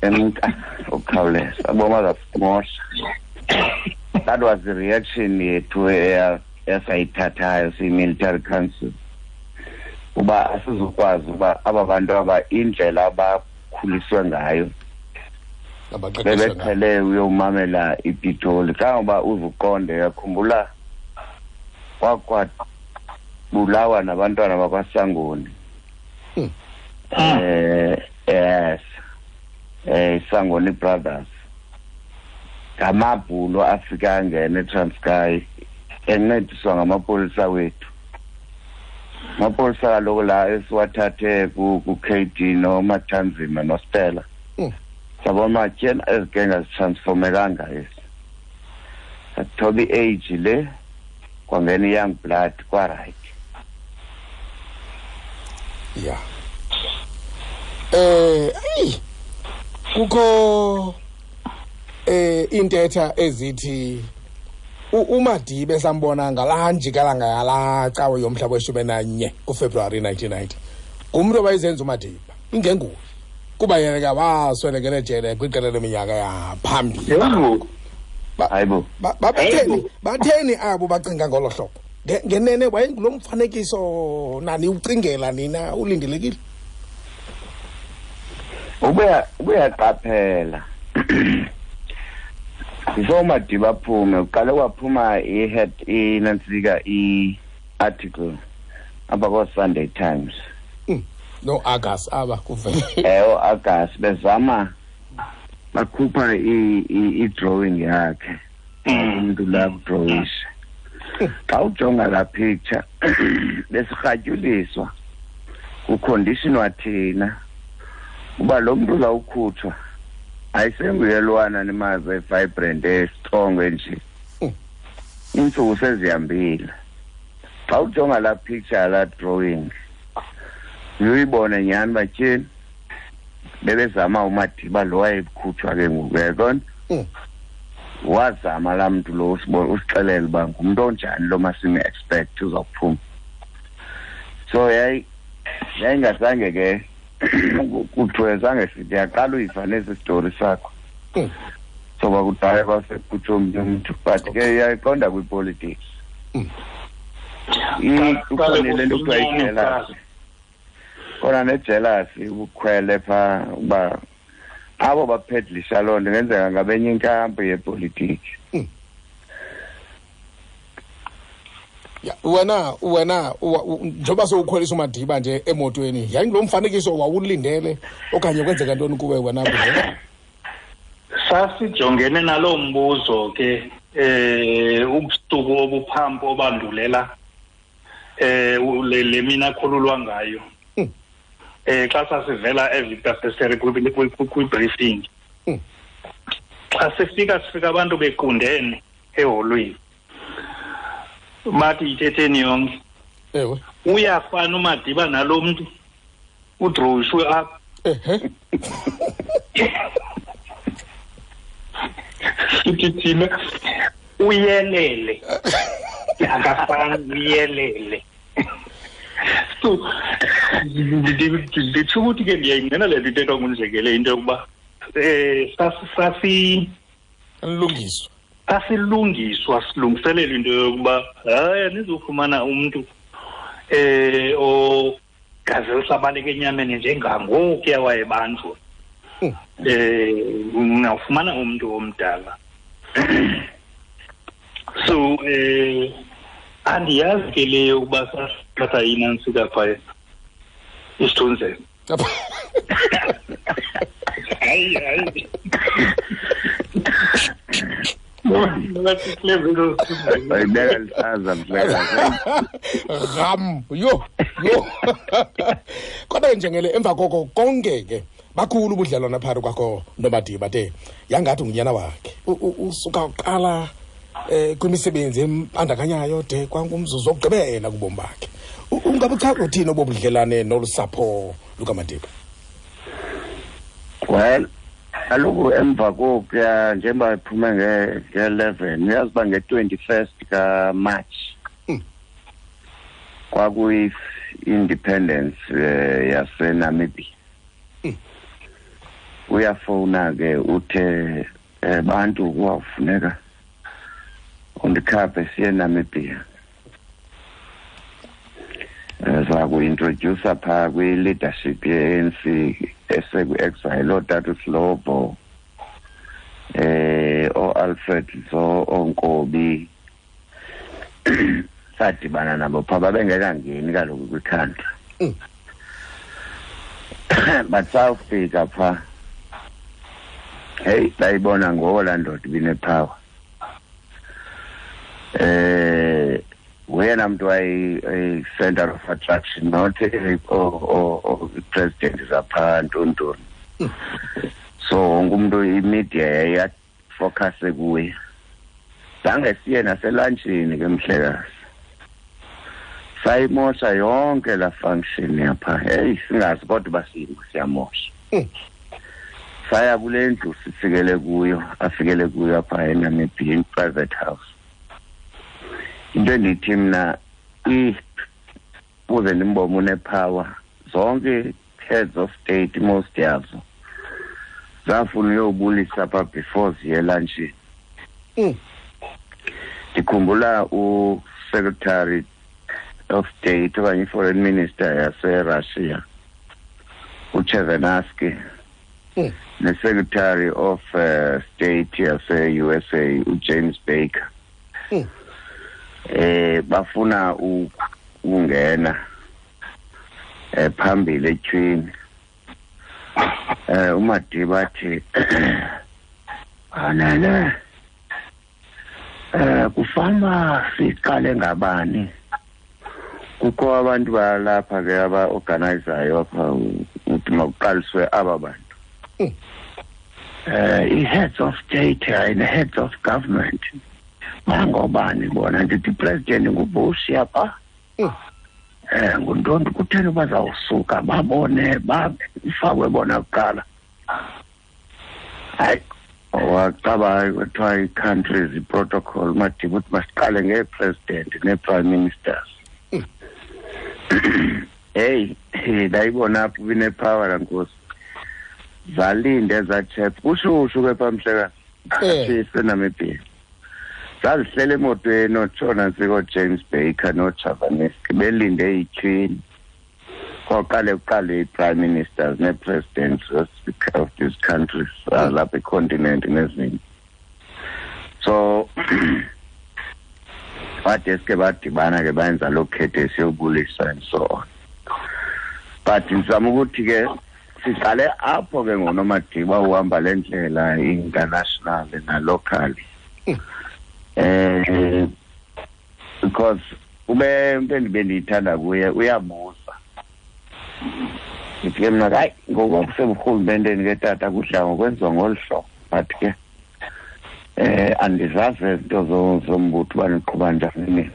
[SPEAKER 3] emka ukukhawuleza, aboma zasimosha. That was the reaction yethu esayithathayo siyi-military council, uba asizukwazi uba aba bantu aba indlela abakhuliswe ngayo,
[SPEAKER 1] Abaqeqeshwe ngayo.
[SPEAKER 3] Bebeqhele uyomamela iPitoli, kangoba uzuqonde, yakhumbula kwakwabulawa nabantwana bakwaSangoni. Yes, Sangoni Brothers, ngamabhulo afika angena eTranskei encediswa ngamapolisa wethu, amapolisa kaloku la esiwathathe ku-KD noMathanzima noStella. Sabona tyena ezigenga zitransformekanga esi, sathoba i-age le, kwangena i-young blood, kwa-right.
[SPEAKER 1] Ya, ayi, kukho intetha ezithi uMadiba sambona ngalaa njikalanga yalaa cawe yomhla we-11 kuFebruwari 1990 ngumntu owayezenza uMadiba, ingenguye, kuba yena ke waswelekele ejele kwiqela leminyaka yaphambili.
[SPEAKER 3] Hayibo.
[SPEAKER 1] Batheni, batheni abo bacinga ngolo hlobo? Ngenene wayengulo mfanekiso nani ucingela nina ulindelekile?
[SPEAKER 3] Ubuyaqaphela before uMadiba aphume, uqale kwaphuma i-head, inantsika, i-article apha koo-Sunday Times.
[SPEAKER 1] No Argus aba kuvele.
[SPEAKER 3] O-Argus bezama bakhupha i-drawing yakhe, umuntu la kudrowisha. Xa ujonga laa picture, besirhatyuliswa kuconditionwa thina uba lo mntu uzawukhutshwa ayisenguye lwana nimazi evibrant, estrong nje, iintsuku sezihambile. Xa ujonga laa picture, laa drawing, uyibone nyhani uba tyhini, bebezama uMadiba lo wayekhutshwa ke ngoku, uyayibona? Wazama laa mntu lo usixelela uba ngumntu onjani lo masime-expect uzawuphuma. So yayingazange ke kuthiwe, zange sithi yaqala uyiva nesi sitori sakho. So kwakudala kwasekukhutshwa omnye umntu, but ke iyayiqonda kwipolitics. Ikhona le nto kuthiwa yi-jealousy, khona ne-jealousy, ubukhwele phaa, uba abo baphedlisha loo nto ingenzeka ngabenye inkampu yepolitiki.
[SPEAKER 1] Ya, wena njengoba sowukhwelisa uMadiba nje emotweni, yayingulo mfanekiso wawulindele okanye kwenzeka ntoni kuwe wena kuze?
[SPEAKER 4] Sasijongene naloo mbuzo ke ubusuku obuphambi obandulela le mina akhululwa ngayo. Xa sasivela eVictor Verster kwi-briefing. Xa sifika, sifika abantu bequndene eholweni. Bathi yithetheni yonke. Uyafana uMadiba nalo mntu udrowishwe apha. Sithi thina uyelele. Akafani, uyelele. So nditsho ukuthi ke ndiyayingqina le nto ithethwa nguNjengele, into yokuba sasi
[SPEAKER 1] lungiswa,
[SPEAKER 4] sasilungiswa, silungiselela into yokuba hayi, anizofumana umntu ogazi lisabaleka enyameni njengangokuya wayebanjwa, ungawufumana umntu omdala. So andiyazi ke leyo ukuba sasithatha inantsika phaya isithunzela. Hayi hayi.
[SPEAKER 3] Bayibeka lihlaza mhlekazi.
[SPEAKER 1] Ram yo yo. Kodwa njengele emva koko konke ke bakhulu ubudlelwane phakathi kwakho noMadiba de yangathi ngunyana wakhe. Usuka uqala kwimisebenzi embandakanyayo de kwangumzuzu wokugqibela kubomi bakhe. Ungabuchaza uthini obo budlelane nolu sapho lukaMadiba?
[SPEAKER 3] Well, kaloku emva kokuya njengoba iphume nge-11 uyazi uba nge-21st kaMarch kwakuyi-independence yaseNamibia. Uyafowuna ke uthe bantu kuwawufuneka undikhaphe siye eNamibia. Zaku-introduce phaa kwi-leadership ye-ANC esekwi-exile ootata uSlobo, ooAlfred Nzo, ooNkobi. Sadibana nabo phaa, babengekangeni kaloku kwi-country. But sawufika phaa, heyi, bayibona ngoko laa ndoda ibinepower. Nguyena mntu wayi-center of attraction, not i-president zaphaa ntontoni. So wonke umntu imedia yayiyafocuse kuye. Zange siye naselantshini ke mhlekazi. Sayimosha yonke laa function yapha. Heyi, singazi kodwa uba siyamosha. Saya kule ndlu sifikele kuyo, afikele kuyo apha eNamibia, in-private house. Into endithi mna uze ndimbone unepower, zonke heads of state most yazo zafuna uyobulisa pha before ziye elantshini. Ndikhumbula u-Secretary of State okanye i-Foreign Minister yaseRussia uChevenaski, ne-Secretary of State yase-USA uJames Baker. Bafuna ukungena phambili etyhwini. uMadiba athi anele kufana siqale ngabani. Kukho abantu balapha ke aba-organizayo apha ukuthi makuqaliswe aba bantu. I-heads of state and heads of government bangobani bona? Ndithi president nguBush yapha. Nguntoni kutheni bazawusuka babone bafakwe bona kuqala. Hayi, wacaba kwathiwa i-countries i-protocol Madiba uthi masiqale ngee-president nee-prime ministers. Heyi, ndayibona apho ibinepower laa nkosi. Zalinde ezaa chap kushushu ke phaa mhlekazi eseNamibia. Zazihlela emotweni ootshona ntsiko James Baker nooChavaneski belinde ityhwini. Koqale kuqale ii-prime ministers nee-presidents of these countries lapha econtinent nezinye. So badeske badibana ke bayenza loo khethe siyobulisa and so on. But ndizama ukuthi ke siqale apho ke ngonoMadiba uhamba le ndlela international na-locally. Because ube into endibe ndiyithanda kuye uyabuza. Ndithi ke mna hayi ngoku kuseburhulumenteni ke tata kudla ngokwenziwa ngolu hlobo, but ke andizazi izinto zombutho uba niqhuba njani nina.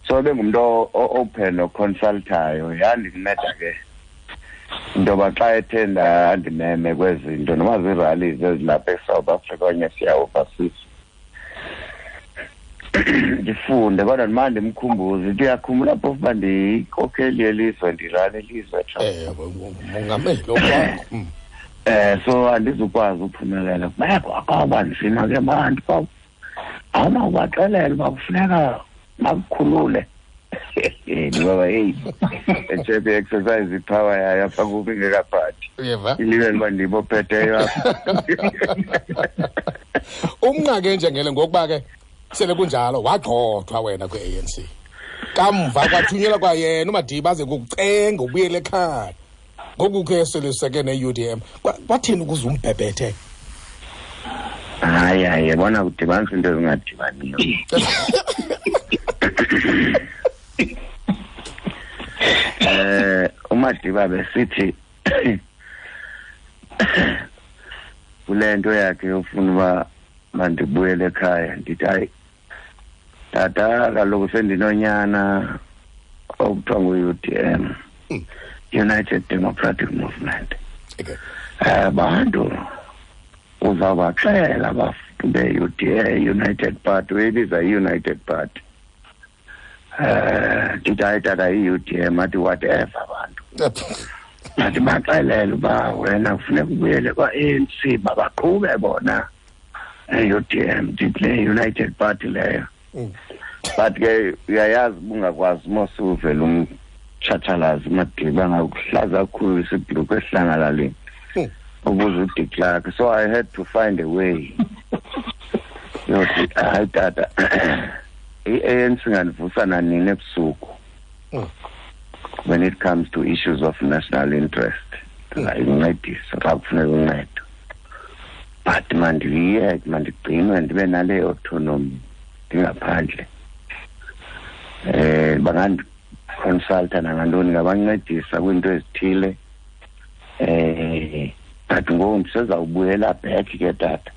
[SPEAKER 3] So ebengumntu open oconsultayo. Yandinceda ke into yoba xa ethe ndandimeme kwezinto noba zii-rallies ezilapha eSouth Africa okanye siya overseas ndifunde, kodwa ndimane ndimkhumbuze into uyakhumbula phofu uba ndiyinkokheli yelizwe, ndirane ilizwe.
[SPEAKER 1] Mongameli okwakho.
[SPEAKER 3] So andizukwazi uphumelela. Kwawuba nzima ke bantu, awunawubaxelela uba kufuneka bakukhulule. Ngoba heyi, etshepe i-exercise ipower yayo apha kubi ingekaphathi.
[SPEAKER 1] Uyeva?
[SPEAKER 3] Ilibele uba ndim ophetheyo apha.
[SPEAKER 1] Umnqake njengele ngokuba ke sele kunjalo wagxothwa wena kwi-ANC. Kamva kwathunyelwa kwayena uMadiba aze kukucenga ubuyele ekhaya. Ngoku ke seliseke ne-UDM. Kwathini ukuze umbhebhethe?
[SPEAKER 3] Hayi hayi, yabona kudibanisa into ezingadibaniyo. uMadiba besithi kule nto yakhe yofuna uba mandibuyele ekhaya, ndithi hayi tata, kaloku sendinonyana okuthiwa ngu-UDM, United Democratic Movement. Bantu uzawubaxela abantu be-UDA, United Party, uyibiza i-United Party. Ndithi hayi tata, i-UDM, athi whatever bantu. Athi baxelele uba wena kufuneka ubuyele kwa-ANC, babaqhube bona e-UDM, ndithi le United Party leyo. But ke uyayazi ubungakwazi mosuvela umtshatshalazi uMadiba ngakuhlaza kakhulu isibhulukhwe esihlangalaleni ukuze uDe Klerk. So I had to find a way. Yothi hayi tata, i-ANC ingandivusa nanini ebusuku when it comes to issues of national interest. Ndingayincedisa xa kufuneka uncedo. But mandiyeke, mandigcinwe ndibe nale autonomy ndingaphandle. Bangandiconsulta nangantoni, ngabancedisa kwiinto ezithile. But ngoku ndisezawubuyela back ke tata,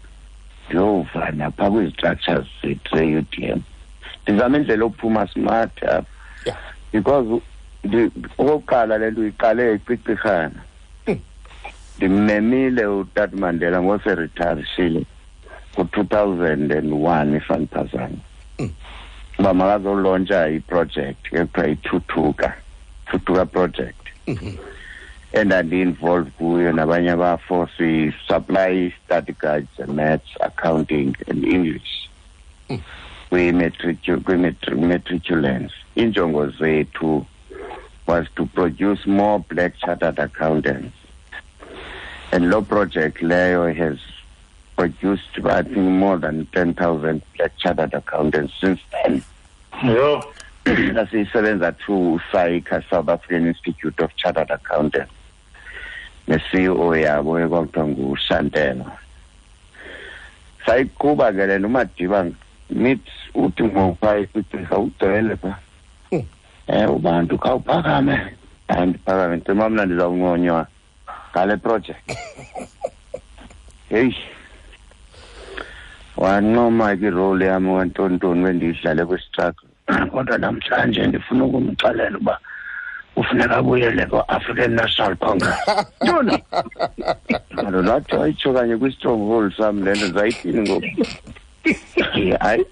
[SPEAKER 3] ndiyova napha kwizi-structures zethu ze-UDM. Ndizama indlela yokuphuma smart apha. Because okokuqala le nto uyiqale ecicirhana. Ndimmemile uTata Mandela ngoseretirishile ngo-2001 if andiphazami. Uba makazolontsha iproject ekuthiwa iThuthuka, Thuthuka project. Endandi-involved kuyo nabanye abafo, si-supply study guides, maths, accounting and English kwi-matriculants. Injongo zethu was to produce more black chartered accountants. And lo project leyo has produced, I think, more than 10,000 black chartered accountants since then. Sasiyisebenza through SAICA, South African Institute of Chartered Accountants. Ne-CEO yabo ekwakuthiwa nguShantela. Sayiqhuba ke le nto, uMadiba meet uthi ngokupha icicirha ugcwele pha. Ubantu khawuphakame. Hayi ndiphakame, ndicima mna ndizawunconywa ngale project. Heyi, wancoma ke irole yami wantontoni bendiyidlale kwi-struggle. Kodwa namhlanje ndifuna ukumxelela uba kufuneka abuyele kwa-African National Congress. Ntoni? Kaloku wathi wayitsho kanye kwi-stronghold sam le nto, ndizayithini ngoku? Hayi,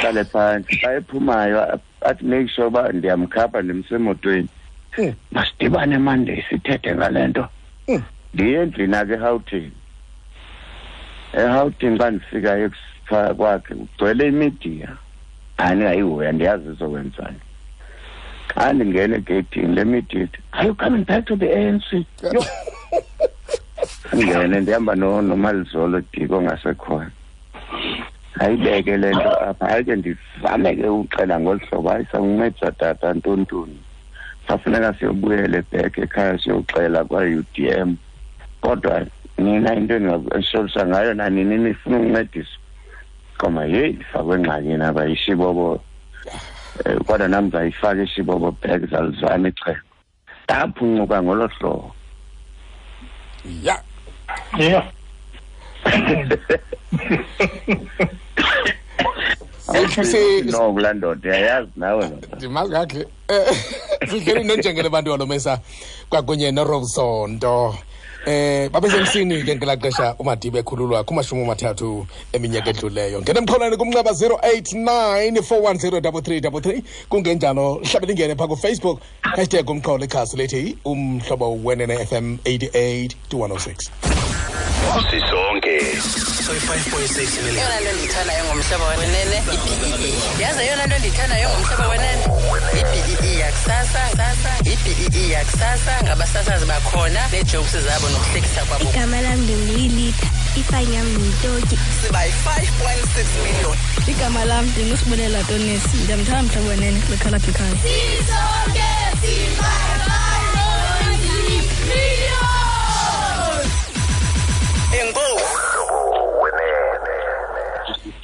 [SPEAKER 3] hlale phantsi. Xa ephumayo athi make sure uba ndiyamkhapha ndimse emotweni. Masidibane Monday sithethe ngale nto. Ndiye endlini akhe eRhawutini. eRhawutini xa ndifikayo kwakhe kugcwele imidiya. Hayi ndingayihoya, ndiyazi izokwenzani. Xa ndingena egeyithini le media ithi, are you coming back to the ANC? Yho! Ndingene ndihamba noMalizolo Diko ongasekhoyo. Ayibeke le nto apha. Hayi ke ndizame ke uxela ngolu hlobo, hayi sakuncedisa tata ntontoni. Safuneka siyobuyela back ekhaya siyoxela kwa-UDM. Kodwa nina into endingakusolisa ngayo nanini nifuna ukuncediswa. Qoma yeyi ndifakwe engxakini apha ishibobo. Kodwa nam ndizayifaka ishibobo back, zalizama ixhego. Ndaphuncuka ngolo hlobo. No, kulaa ndoda uyayazi nawe ndoda.
[SPEAKER 1] Ndimazi kakuhle. Sihleli nonjengele bantu walomesa kwakunye noRobson. Babesemsini ke ngelaa xesha uMadiba ekhululwa kuma-30 eminyaka edluleyo. Ngena emxholweni kumnxeba 089 410 3333, kungenjalo hlabe lingene phaa kuFacebook hashtag umxholo, ikhasi lethi Umhlobo Wenene FM 88 to 106.
[SPEAKER 2] Sisonke.
[SPEAKER 7] So 5.6 million.
[SPEAKER 8] Eyona nto ndiyithandayo ngomhlobo wenene i-BEE. Yazi eyona nto ndiyithandayo ngomhlobo wenene i-BEE yakusasa, i-BEE yakusasa ngabasasazi bakhona nee-jokes zabo nokuhlekisa kwabo.
[SPEAKER 9] Igama lam ndinguyilitha. Ifayini yam yitoki.
[SPEAKER 8] Siba yi-5.6 million.
[SPEAKER 9] Igama lam ndinguSibulela Tonisi. Ndiyamthanda Mhlobo Wenene kwikhala phikhaya.
[SPEAKER 6] Sisonke si-5.6 million.
[SPEAKER 8] Enkosi.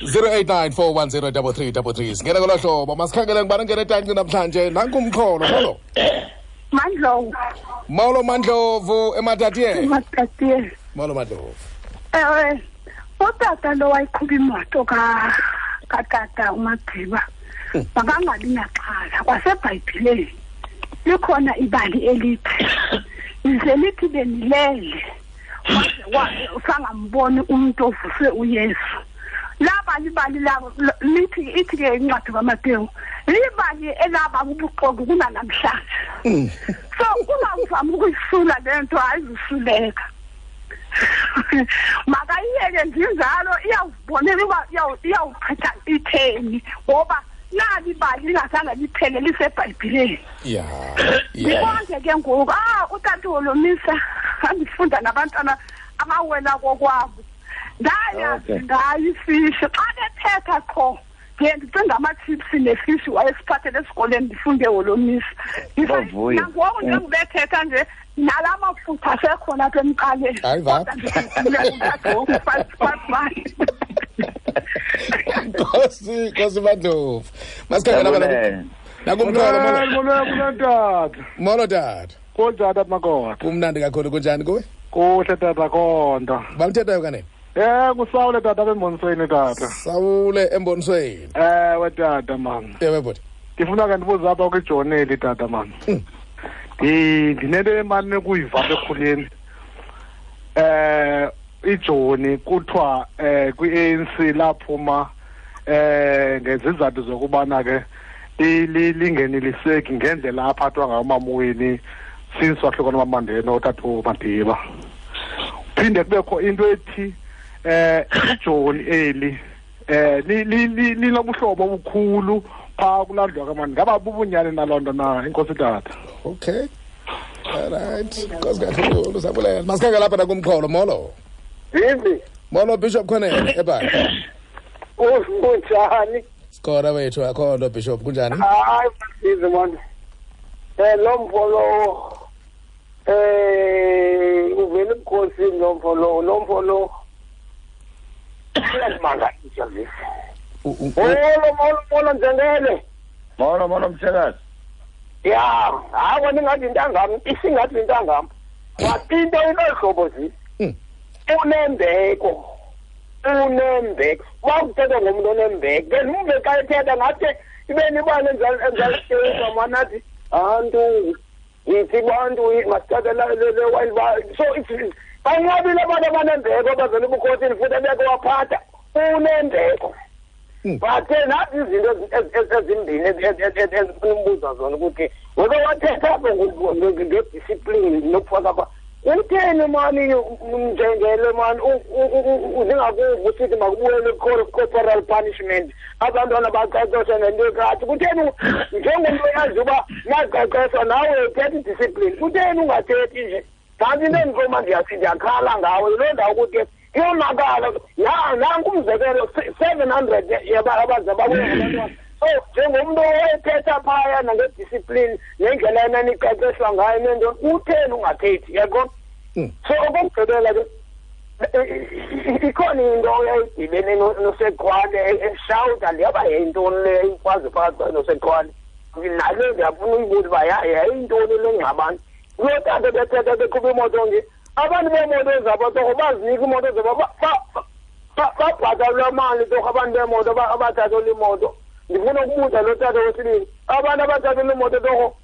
[SPEAKER 1] 0894103333 singena ngolo hlobo. Masikhangele ngubani ongena etanci namhlanje. Nanku umxholo. Molo.
[SPEAKER 10] Mandlovu.
[SPEAKER 1] Molo Mandlovu eMatatiele.
[SPEAKER 10] Ematatiele.
[SPEAKER 1] Molo Mandlovu.
[SPEAKER 10] Ewe, utata lo wayiqhuba imoto katata uMagqiba makangabi naxhala. KwaseBhayibhileni likhona ibali elithi lize lithi benilele waze sangamboni umuntu ovuswe uYesu. Laba libali labo lithi ithi ke incwadi kaMateyu libali elaba ubuxoki kunanamhlanje. So ungavami ukuyisula le nto, ayizusuleka. Makayiyeke njalo, iyawubonela uba iyawuchitha itheni, ngoba nali ibali lingazange liphele liseBhayibhileni. Ndibonke ke ngoku, utata wolomisa andifunda nabantwana abawela kokwabo. Ndayazi ngayo ifishi xa bethetha qho ndiye ndicinga ama-chips nefishi wayesiphathele esikoleni ndifunde wolomisa.
[SPEAKER 3] Bavuya.
[SPEAKER 10] Nangoku njengobethetha nje nala mafutha asekhona apha emqaleni.
[SPEAKER 1] Hayi va.
[SPEAKER 10] Kodwa ndikhumbule utata ngoku, five.
[SPEAKER 1] Nkosi, Nkosi Mandlovu. Masikhangele abana
[SPEAKER 3] Ndiyabulela.
[SPEAKER 1] Nakumxholo, molo.
[SPEAKER 11] Molo, molo, tata.
[SPEAKER 1] Molo tata.
[SPEAKER 11] Kunjani tata Makota?
[SPEAKER 1] Kumnandi kakhulu, kunjani kuwe?
[SPEAKER 11] Kuhle tata Konda.
[SPEAKER 1] Bamthethayo kanene?
[SPEAKER 11] Kusawule tata embonisweni tata.
[SPEAKER 1] Sawule embonisweni.
[SPEAKER 11] Ewe tata man.
[SPEAKER 1] Ewe bhuti.
[SPEAKER 11] Ndifuna ke ndibuze apha kwijoneli tata man. Ndinento emane kuyiva apha ekhuleni. Ijoni kuthiwa kwi-ANC laphuma ngezizathu zokubana ke lingeneliseki ngendlela aphathwa ngayo uMamweni since wahlukana uMaMandela utata uMadiba. Phinde kubekho into ethi ijoni eli linobuhlobo obukhulu phaa kulandwa kamani. Ngaba bubunyani naloo nto na, inkosi tata?
[SPEAKER 1] Okay. All right. Nkosi kakhulu sabulela. Masikhangele lapha nakumxholo. Molo.
[SPEAKER 12] Vivi.
[SPEAKER 1] Molo Bishop Khonene ebhayi.
[SPEAKER 12] Kunjani?
[SPEAKER 1] Sikhona wethu, akho nto Bishop, kunjani?
[SPEAKER 12] Hayi, Vivi man. Lo mfo lo uvela ebukhosini lo mfo lo, lo mfo lo. Uyandimangalisa Vivi. Molo, molo, molo Njengele.
[SPEAKER 3] Molo, molo mhlekazi.
[SPEAKER 12] Ya, hayi wena ingathi intangam, isingathi intangam. But into inohlobo zi. Unembeko. Unembeko. Wakuthetha ngomntu onembeko. Ke umve xa ethetha ngathi ibe nibane enjalo manathi antu yithi bantu masithathe le wild ba. So it's banqabile abantu abanembeko abazela ebukhosini futhi ebeke waphatha unembeko. But nathi izinto ezimbini ezifuna umbuza zona ukuthi weke wathetha apho ngediscipline nokufaka apha. Utheni mani Njengele mani uzingakuva usithi makubuyele corporal punishment abantwana baqeqeshwe nento ekati. Kutheni njengomntu oyazi uba naqeqeshwa nawe uthetha idiscipline, kutheni ungathethi nje? Kanti into endikoma ndiyakhala ngawe yiloo ndawo ukuthi iyonakala. Nanku umzekelo 700 abaze babuye ngabantwana. So njengomntu owayethetha phaya nangediscipline nendlela enaniqeqeshwa ngayo nento, utheni ungathethi? Yaqonda? So okokugqibela ke ikhona into eyayidibene noSekhwane eshawuta ndiyaba yayintoni le ikwazi phakathi kwayo noSekhwane. Nale ndiyafuna uyibuza uba yayintoni le ngxabano. Kuloo tata bethetha beqhuba imoto nje, abantu beemoto zabo torho bazinika imoto zabo babhatalwa mali torho abantu beemoto abathathelwa imoto. Ndifuna ukubuza lo tata wesibini, abantu abathathelwa imoto torho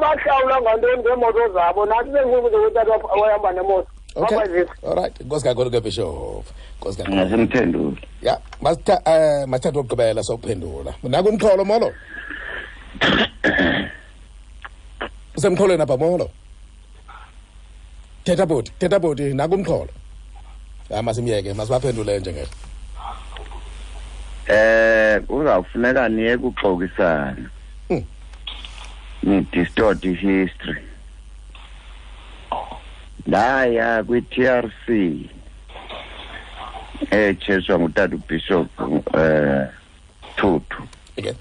[SPEAKER 12] bahlawula ngantoni ngeemoto zabo? Nathi sendikubuza utata wahamba nemoto.
[SPEAKER 1] Okay. All right. Nkosi kakhulu ke Bishop. Nkosi kakhulu.
[SPEAKER 3] Ngasimphendule.
[SPEAKER 1] Ya, masithathe ukugqibela sokuphendula. Nakumxholo molo. Usemxholweni apha molo. Thetha bhuti, thetha bhuti nakumxholo. Ha masimyeke, masibaphendule njengelo.
[SPEAKER 3] Kuzawufuneka niye kuxokisana. Ni distort history. Ndaya kwi-TRC echeswa ngutata uBishop Tutu.
[SPEAKER 1] Okay.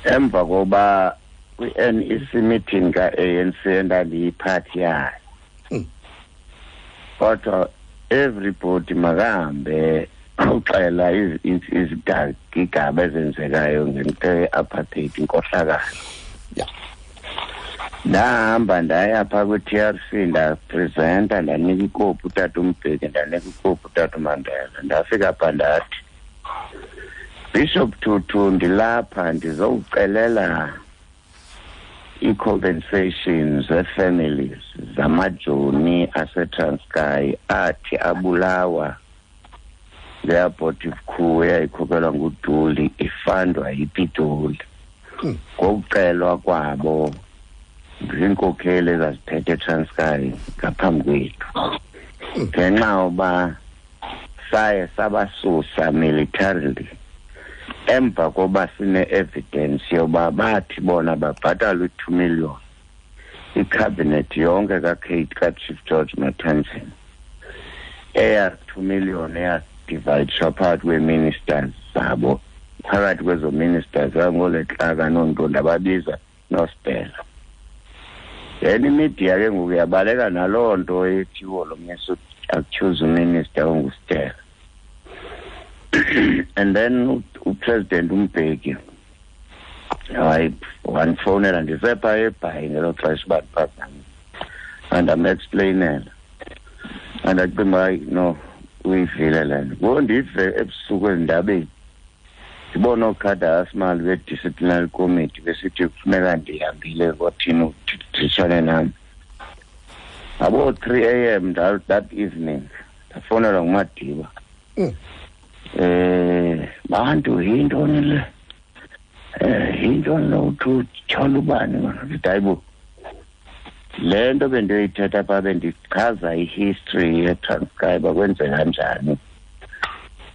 [SPEAKER 3] Emva koba kwi-NEC meeting ka-ANC endandiyiphathi yayo. Kodwa everybody makahambe uxela izigigaba ezenzekayo ngento ye-apartheid, inkohlakalo. Ndahamba ndaya phaa kwi-TRC, ndapresenta, ndanika ikopi utata uMbeki, ndanika ikopi utata uMandela. Ndafika phaa ndathi, Bishop Tutu, ndilapha ndizokucelela i-compensation ze-families zamajoni aseTranskei athi abulawa le-abortive coup eyayikhokhelwa nguDuli ifandwa yiPitoli. Ngokucelwa kwabo ziinkokheli ezaziphethe eTranskei ngaphambi kwethu. Ngenxa yoba saye sabasusa militarily emva koba sine-evidence yoba bathi bona babhatala u-2 million icabinet yonke kaKate kaChief George Matanzima, eya 2 million eyadivayidishwa phakathi kwee-ministers zabo, phakathi kwezo ministers angoLetlaka noontonto ababiza noStella. Then imedia ke ngoku yabaleka naloo nto ethiwo lo mnisi accuse uminister onguStella. And then uPresident uMbeki hayi wandifowunela ndisepha eBhayi ngelo xesha uba ndiphazame, andamexplainela, andacinga hayi no uyivile le nto. Ngoku ndive ebusuku ezindabeni ndibona ookhada asimali be-disciplinary committee besithi kufuneka ndihambile kwathini uditshane nam. Ngabo 3 a.m. that evening ndafowunelwa nguMadiba. Bantu yintoni le? Yintoni lo uthi utyhola ubani mana? Ndithi hayibo, le nto bendiyoyithetha phaa bendichaza i-history yeTranskei uba kwenzeka njani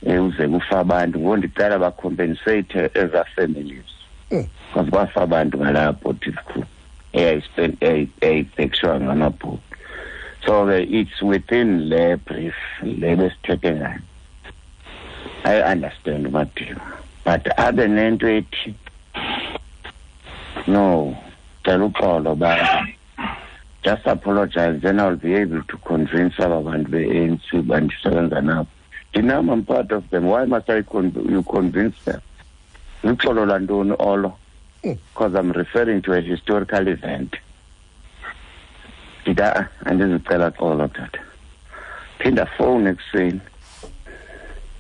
[SPEAKER 3] uze kufa abantu. Ngoku ndicela bacompensate ezaa families because kwafa abantu ngalaa abortive coup eyayibhekiswa ngamabhuku. So ke it's within le brief le besithethe ngayo. I understand uMadiba, but abe nento ethi no, cela uxolo ba just apologize, then I'll be able to convince aba bantu be-ANC uba ndisebenza nabo. Ndinam, I'm part of them. Why must I you convince them? Luxolo lwantoni olo? Because I'm referring to a historical event. Ndithi andizicela xolo tata. Phinda fowuni ekuseni.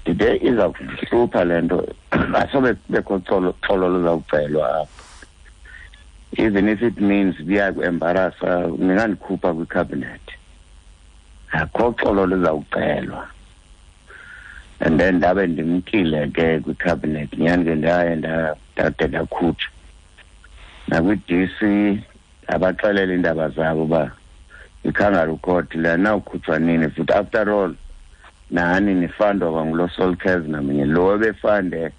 [SPEAKER 3] Ndide iza kundihlupha le nto, asobe kubekho xolo luzawucelwa apha. Even if it means kuyakuembarasa, ningandikhupha kwicabinet. Akho xolo luzawucelwa. And then ndabe ndimkile ke kwicabinet, nyhani ke ndaye ndade ndakhutshwa. Nakwi-DC abaxelela iindaba zabo uba i-kangaroo court le anawukhutshwa nini futhi. After all, nani nifandwa kwangulo Sol Kerzner mnye lo ebefande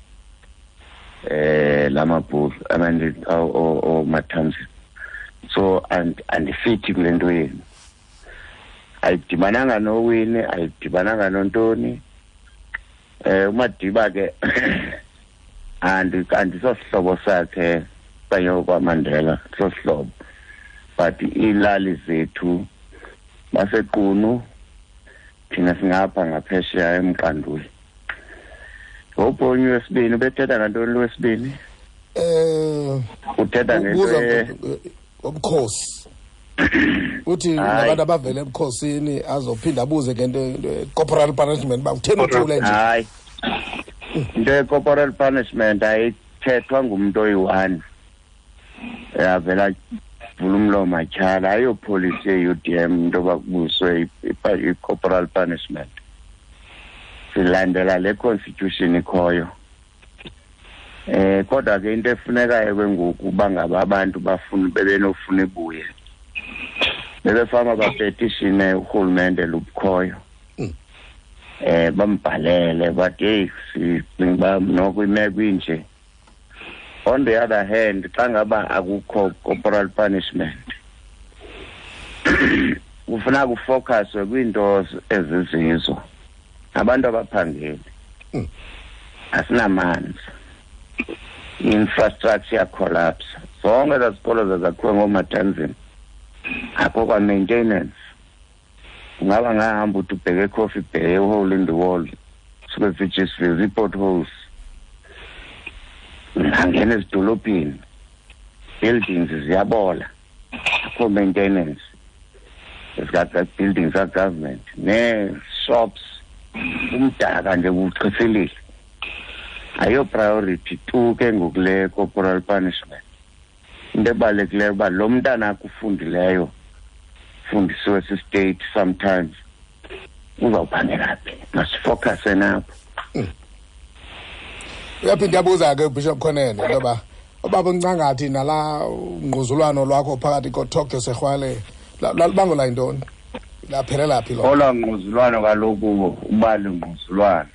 [SPEAKER 3] lamabhulu oMathanzima. So andifithi kule nto yenu. Ayidibananga noWinnie, ayidibananga nontoni. uMadiba ke andisosihlobo sakhe okanye kwaMandela, sosihlobo. But iilali zethu baseQunu, thina singapha ngaphesheya eMqanduli. Ngobhonyi wesibini ubethetha ngantoni lo wesibini? Uthetha ngento
[SPEAKER 1] obukhosi. Uthi nabantu abavele ebukhosini azophinda abuze ngento corporal punishment ba utheni uthule nje.
[SPEAKER 3] Hayi. Into ye-corporal punishment ayithethwa ngumuntu oyi-one. Yavela vula umlomo atyhala, ayopolisi ye-UDM into yoba kubuswe i-corporal punishment. Silandela le constitution ikhoyo. Kodwa ke into efunekayo ke ngoku uba ngaba abantu bafuna bebenofuna ibuye, bebefama bapetishine urhulumente lubukhoyo. Bambhalele bathi hey, sicinga uba noko imeko inje. On the other hand, xa ngaba akukho corporal punishment, Kufuna kufocuswe kwiinto ezizizo. Abantu abaphangeli. Asinamanzi. Infrastructure collapse. Zonke ezikolo zazakhiwe ngomatanzini. Akho kwa maintenance. Ungaba ngahamba uthi ubheke eCoffee Bay, hole in the wall. Suke sijiswe zi-potholes. Angena ezidolophini. Buildings ziyabola. Akho maintenance. Ezika buildings za government. Ne-shops. Umdaka nje kuchithilile. Ayo priority tu ke ngokule corporal punishment. Into ebalulekileyo uba lo mntana akufundileyo fundisiwe si-state sometimes uzawuphangela phi. Masifocuse napho.
[SPEAKER 1] Uyaphinda yabuza ke Bishop Khonene ngoba ubaba uncangathi nala ngquzulwano lwakho phakathi koTokyo Sexwale lalubangela yintoni? Laphelela phi lo?
[SPEAKER 3] Olwa ngquzulwano kaloku ubali ngquzulwano.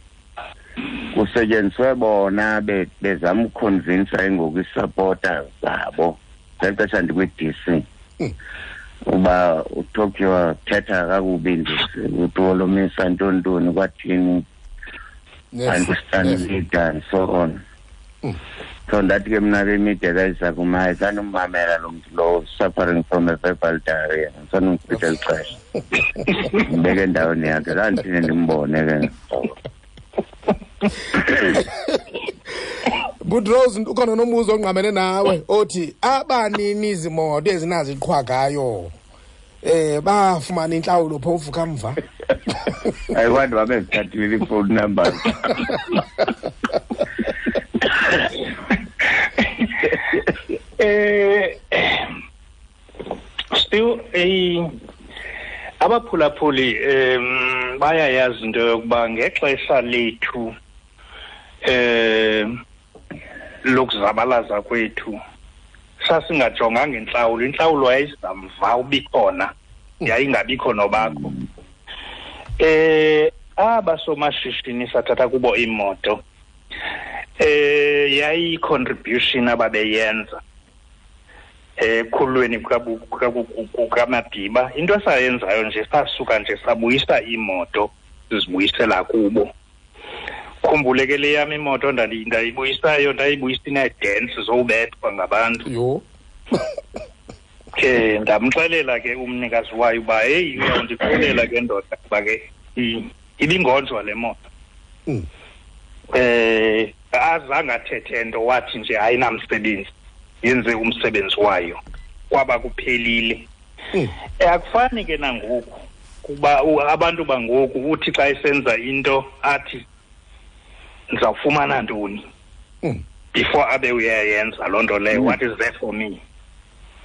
[SPEAKER 3] Kusetyenziswe bona bezama ukuconvince ngoku isupporters zabo ngexesha ndikwi-DC uba uTokyo thetha kakubi nje utolomisa ntontoni kwathini understand leader and so on. So ndathi ke mna ke imide kayizakumaye sanomamela lo mntu lowo suffering from a verbal diarrhea sanomchitha lixesha ndibeke endaweni yakhe kanti ndimbone ke.
[SPEAKER 1] Good Rose ukhona nombuzo ongqamene nawe othi abanini izimoto ezinaziqhwagayo bafumana intlawulo phofu kamva.
[SPEAKER 3] Ayiwantu babezithathile i-phone numbers.
[SPEAKER 4] Still abaphulaphuli bayayazi into yokuba ngexesha lethu lokuzabalaza kwethu sasingajonganga intlawulo. Intlawulo yayizamva ubikhona, yayingabikho nobakho. Abasomashishini sathatha kubo imoto yayi contribution ababeyenza ekhulweni kukaMadiba. Into esayenzayo nje sasuka nje sabuyisa imoto sizibuyisela kubo. Khumbule ke le yam imoto ndayibuyisayo ndayibuyisa inee-dents zowubethwa ngabantu.
[SPEAKER 1] Yho.
[SPEAKER 4] Ke ndamxelela ke umnikazi wayo uba heyi uyawundixelela ke ndoda kuba ke ibingonjwa le moto. Azange athethe nto, wathi nje ayinamsebenzi, yenze umsebenzi wayo, kwaba kuphelile. Akufani ke nangoku kuba abantu bangoku uthi xa esenza into athi ndizawufumana ntoni before abe uyayenza loo nto leyo. What is there for me?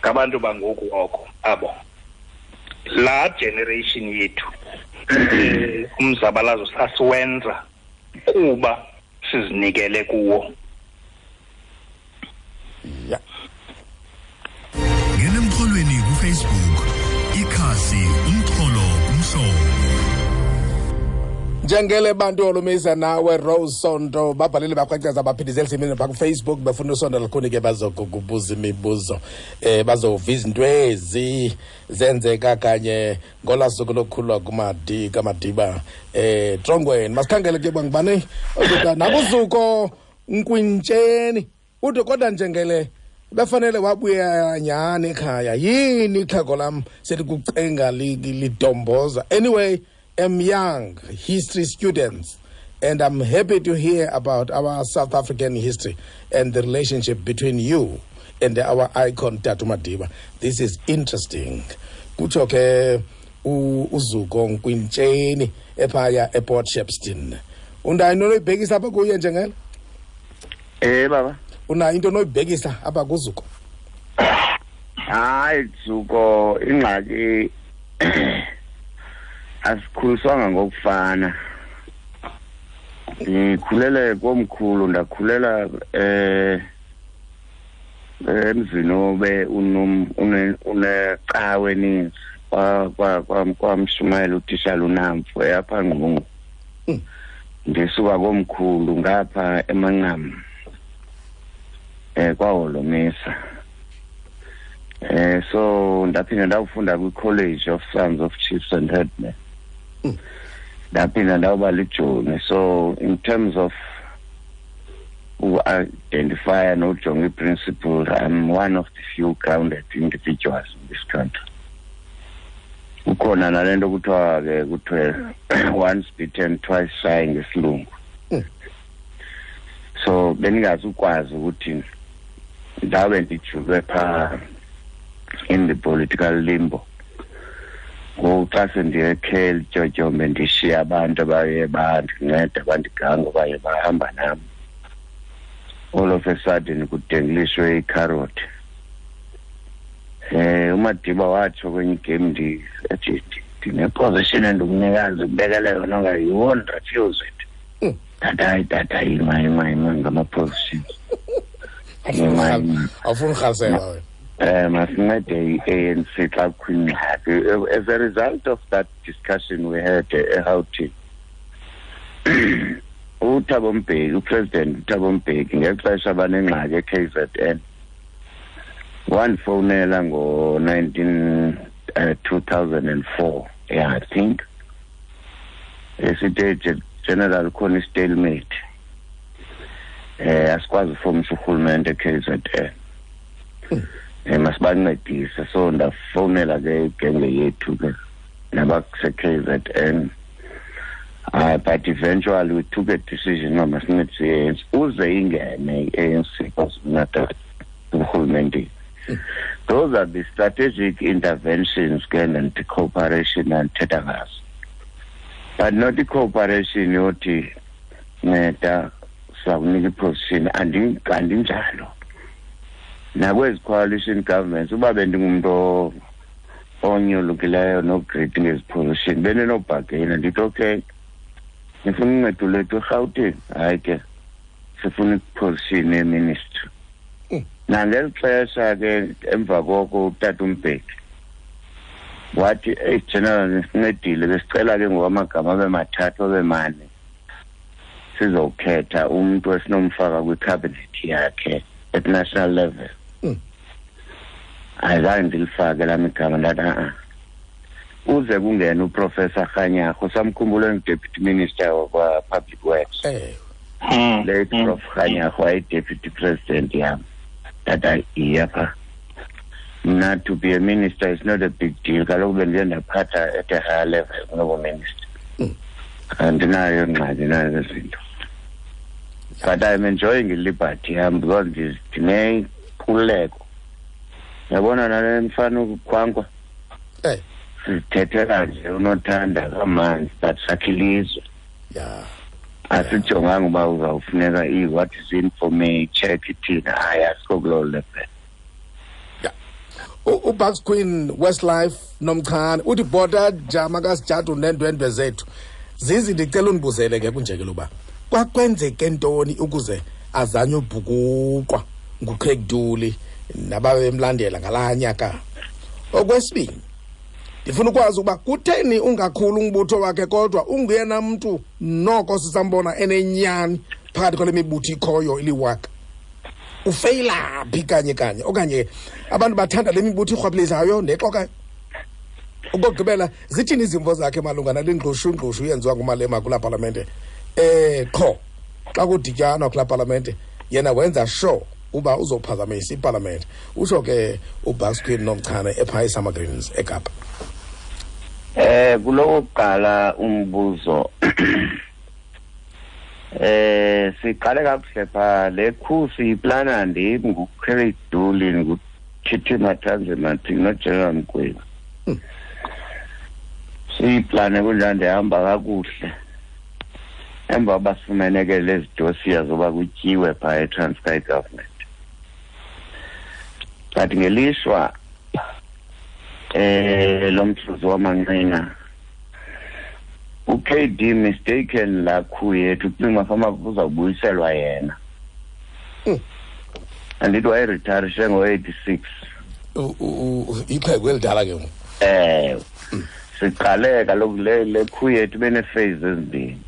[SPEAKER 4] Ngabantu bangoku oko abo laa generation yethu umzabalazo sasiwenza kuba sizinikele kuwo.
[SPEAKER 1] Yeah.
[SPEAKER 2] Ngena emxholweni kuFacebook, ikhasi umxholo kumhlobo.
[SPEAKER 1] Njengele bantu olumisa nawe Rose Sonto babhalile bakwacaza baphindizela simini pha kuFacebook befuna usonto lukhuni ke bazokubuza imibuzo bazova izinto ezi zenzeka kanye ngola suku lokukhulwa kumadi kaMadiba Trongweni. Masikhangele ke bangibane ozoda nakuzuko Nkwintsheni ude kodwa njengele befanele wabuya nyani ekhaya yini ixhego lam selikucenga lidomboza. Anyway, I'm young history students and I'm happy to hear about our South African history and the relationship between you and our icon Tatu Madiba. This is interesting. Kutsho ke uZuko Nkwintsheni ephaya ePort Shepstone. Unayo into onoyibhekisa apha kuye njengele?
[SPEAKER 3] Baba.
[SPEAKER 1] Unayo into onoyibhekisa apha kuZuko?
[SPEAKER 3] Hayi Zuko, ingxaki asikhuliswanga ngokufana. Ndikhulele komkhulu, ndakhulela emzini obe unecawe eninzi kwamshumayela utishala uNamfu apha Ngqungu. Ndisuka komkhulu ngapha eMancam kwaHolomisa. So ndaphinda ndawufunda kwi-College of Sons of Chiefs and Headmen. Ndaphinda ndawuba lijoni. So in terms of identify nojonga i-principle, I'm one of the few grounded individuals in this country. Kukhona nale nto kuthiwa ke kuthiwe once bitten twice shy ngesilungu. So bendingazukwazi ukuthi ndabe ndijulwe phaa in the political limbo. Ngoku xa sendiyekhe lityotyombe ndishiya abantu abaye bandinceda bandiganga baye bahamba nam, all of a sudden kudenglishwe ikharothi. uMadiba watsho kwenye igame ethi ndine-position endikunikazi kubekele yona nga you won't refuse it. Tata ima ngama-positions.
[SPEAKER 1] Awufuni urhalisela wena.
[SPEAKER 3] Masincede i-ANC xa kukho ingxaki. As a result of that discussion we had eGauteng, uThabo Mbeki, uPresident uThabo Mbeki ngexesha banengxaki e-KZN, wandifowunela ngo-2004, yeah, I think, esithi General khona i-stalemate, asikwazi ufomisa urhulumente e-KZN, masibancedise. So ndafowunela ke igenge yethu ke nabakuse-KZN. But eventually we took a decision uba masincedise i-ANC uze ingene i-ANC KwaZulu-Natal urhulumente. Those are the strategic interventions ke and the cooperation andithetha ngazo, but not i-cooperation yothi nceda sizakunika i-position. Andinjalo nakwezi coalition governments. Uba bendingumntu onyolukileyo no-greedy ngezi position, bendinobhageyina ndithi okay, nifuna uncedo lwethu eRhawutini, hayi ke sifuna i-position yeministry. Nangeli xesha ke emva koko utata uMbeki wathi, eyi General, nisincedile, besicela ke ngoku amagama abe mathathu abe mane, sizokhetha umntu esinomfaka kwi-cabinet yakhe at national level. Ayizange ndilifake lam igama, ndathi a-a, uze kungena uProfessor Kganyago, samkhumbula engu-Deputy Minister of Public Works. Late Prof Kganyago waye-Deputy President yam. Tata iya pha. Mna to be a minister is not a big deal. Kaloku bendiye ndaphatha at a higher level kunobuminister. Andinayo ingxaki nazo zinto. But I'm enjoying i-liberty yam because ndinenkululeko. Yabona nale mfana ukukhwankwa, sizithethela nje unothanda kamanzi, but sakhe ilizwe. Asijonganga uba uzawufuneka i-what is in for me, check ithina. Hayi, asikho kuloo level.
[SPEAKER 1] uBucks Queen Westlife Nomchane uthi bhota jama kasijadu neendwendwe zethu. Zizi, ndicela undibuzele ke kunjekelo uba kwakwenzeke ntoni ukuze azanywe ubhukuqwa nguCraig Duli nababemlandela ngalaa nyaka. Okwesibini, ndifuna ukwazi ukuba kutheni ungakhulu umbutho wakhe kodwa unguyena mntu noko sisambona enenyani phakathi kwale mibutho ikhoyo iliwaka. Ufeyila phi kanye kanye, okanye abantu bathanda le mibutho irhwaphilizayo nexokayo? Okokugqibela, zithini izimvo zakhe malunga nale ngqushu yenziwa nguMalema kulaa palamente? Qho xa kudityanwa kulaa palamente yena wenza sure uba uzophazamisa ipalamente. Utsho ke uBucks Queen Nomchane ephaa eSummer Greens eKapa.
[SPEAKER 3] Kulokuqala umbuzo, siqale kakuhle phaa le khusi iplana ndim nguCraig Duli, nguTT Matanzima noGeneral Mgwebi. Siyiplane kunjani, ndihamba kakuhle. Emva basifumene ke lezi dosiya zoba kutyiwe phaa eTranskei government. But ngelishwa lo mhluzi wamanqina uKD mistaken laa khu yethu, kucinga fama kuzawubuyiselwa yena. Andithi wayeritarishe ngo-86.
[SPEAKER 1] Ixhego elidala ke ngoku.
[SPEAKER 3] Siqale kaloku le khu yethu benee-phase ezimbini.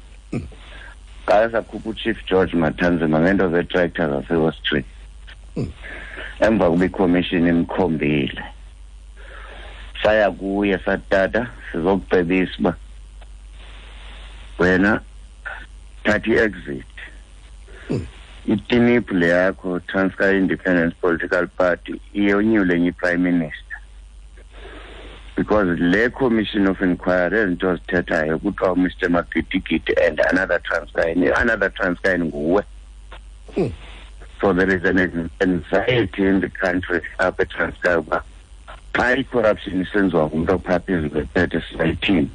[SPEAKER 3] Qale sakhupha uChief George Matanzima ngeento zetractor zaseAustria. Emva kuba ikhomishini imkhombile, saya kuye satata sizokucebisa uba wena thatha i-exit. Itinip le yakho, Transkei Independence Political Party, iyonyule enye i-prime minister, because le commission of inquiry ezinto zithethayo kuthiwa Mr Magidigidi and another Transkei, another Transkei nguwe. So there is an anxiety in the country apha eTranskei uba xa i-corruption isenziwa ngumntu ophaa phezu kwephethe sizayithini.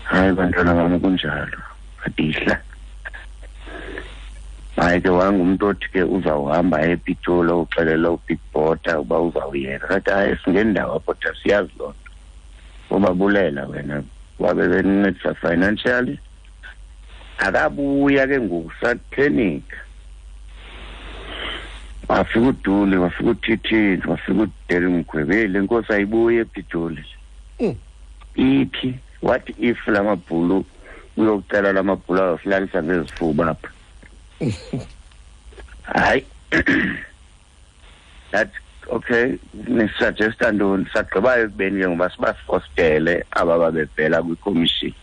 [SPEAKER 3] Hayi bantwana bam, kunjalo, adihla. Hayi ke, wangumntu othi ke uzawuhamba ePitoli uxelela uBig Botha uba uzawuyeka. Kathi hayi, singendawo apho, tha siyazi loo nto, ubabulela wena wabe benincedisa financially. Akabuya ke ngoku, saphenika, wafika uDuli, wafika uThithini, wafika uDeli Mgwebeli. Le nkosi ayibuye ePitoli. Iphi? What if la mabhulu uyocela la mabhulu ayosilalisa ngezifuba apha? Hayi, that okay, nisuggesta ntoni? Sagqibayo ekubeni ke ngoba sibafostele aba babevela kwikhomishini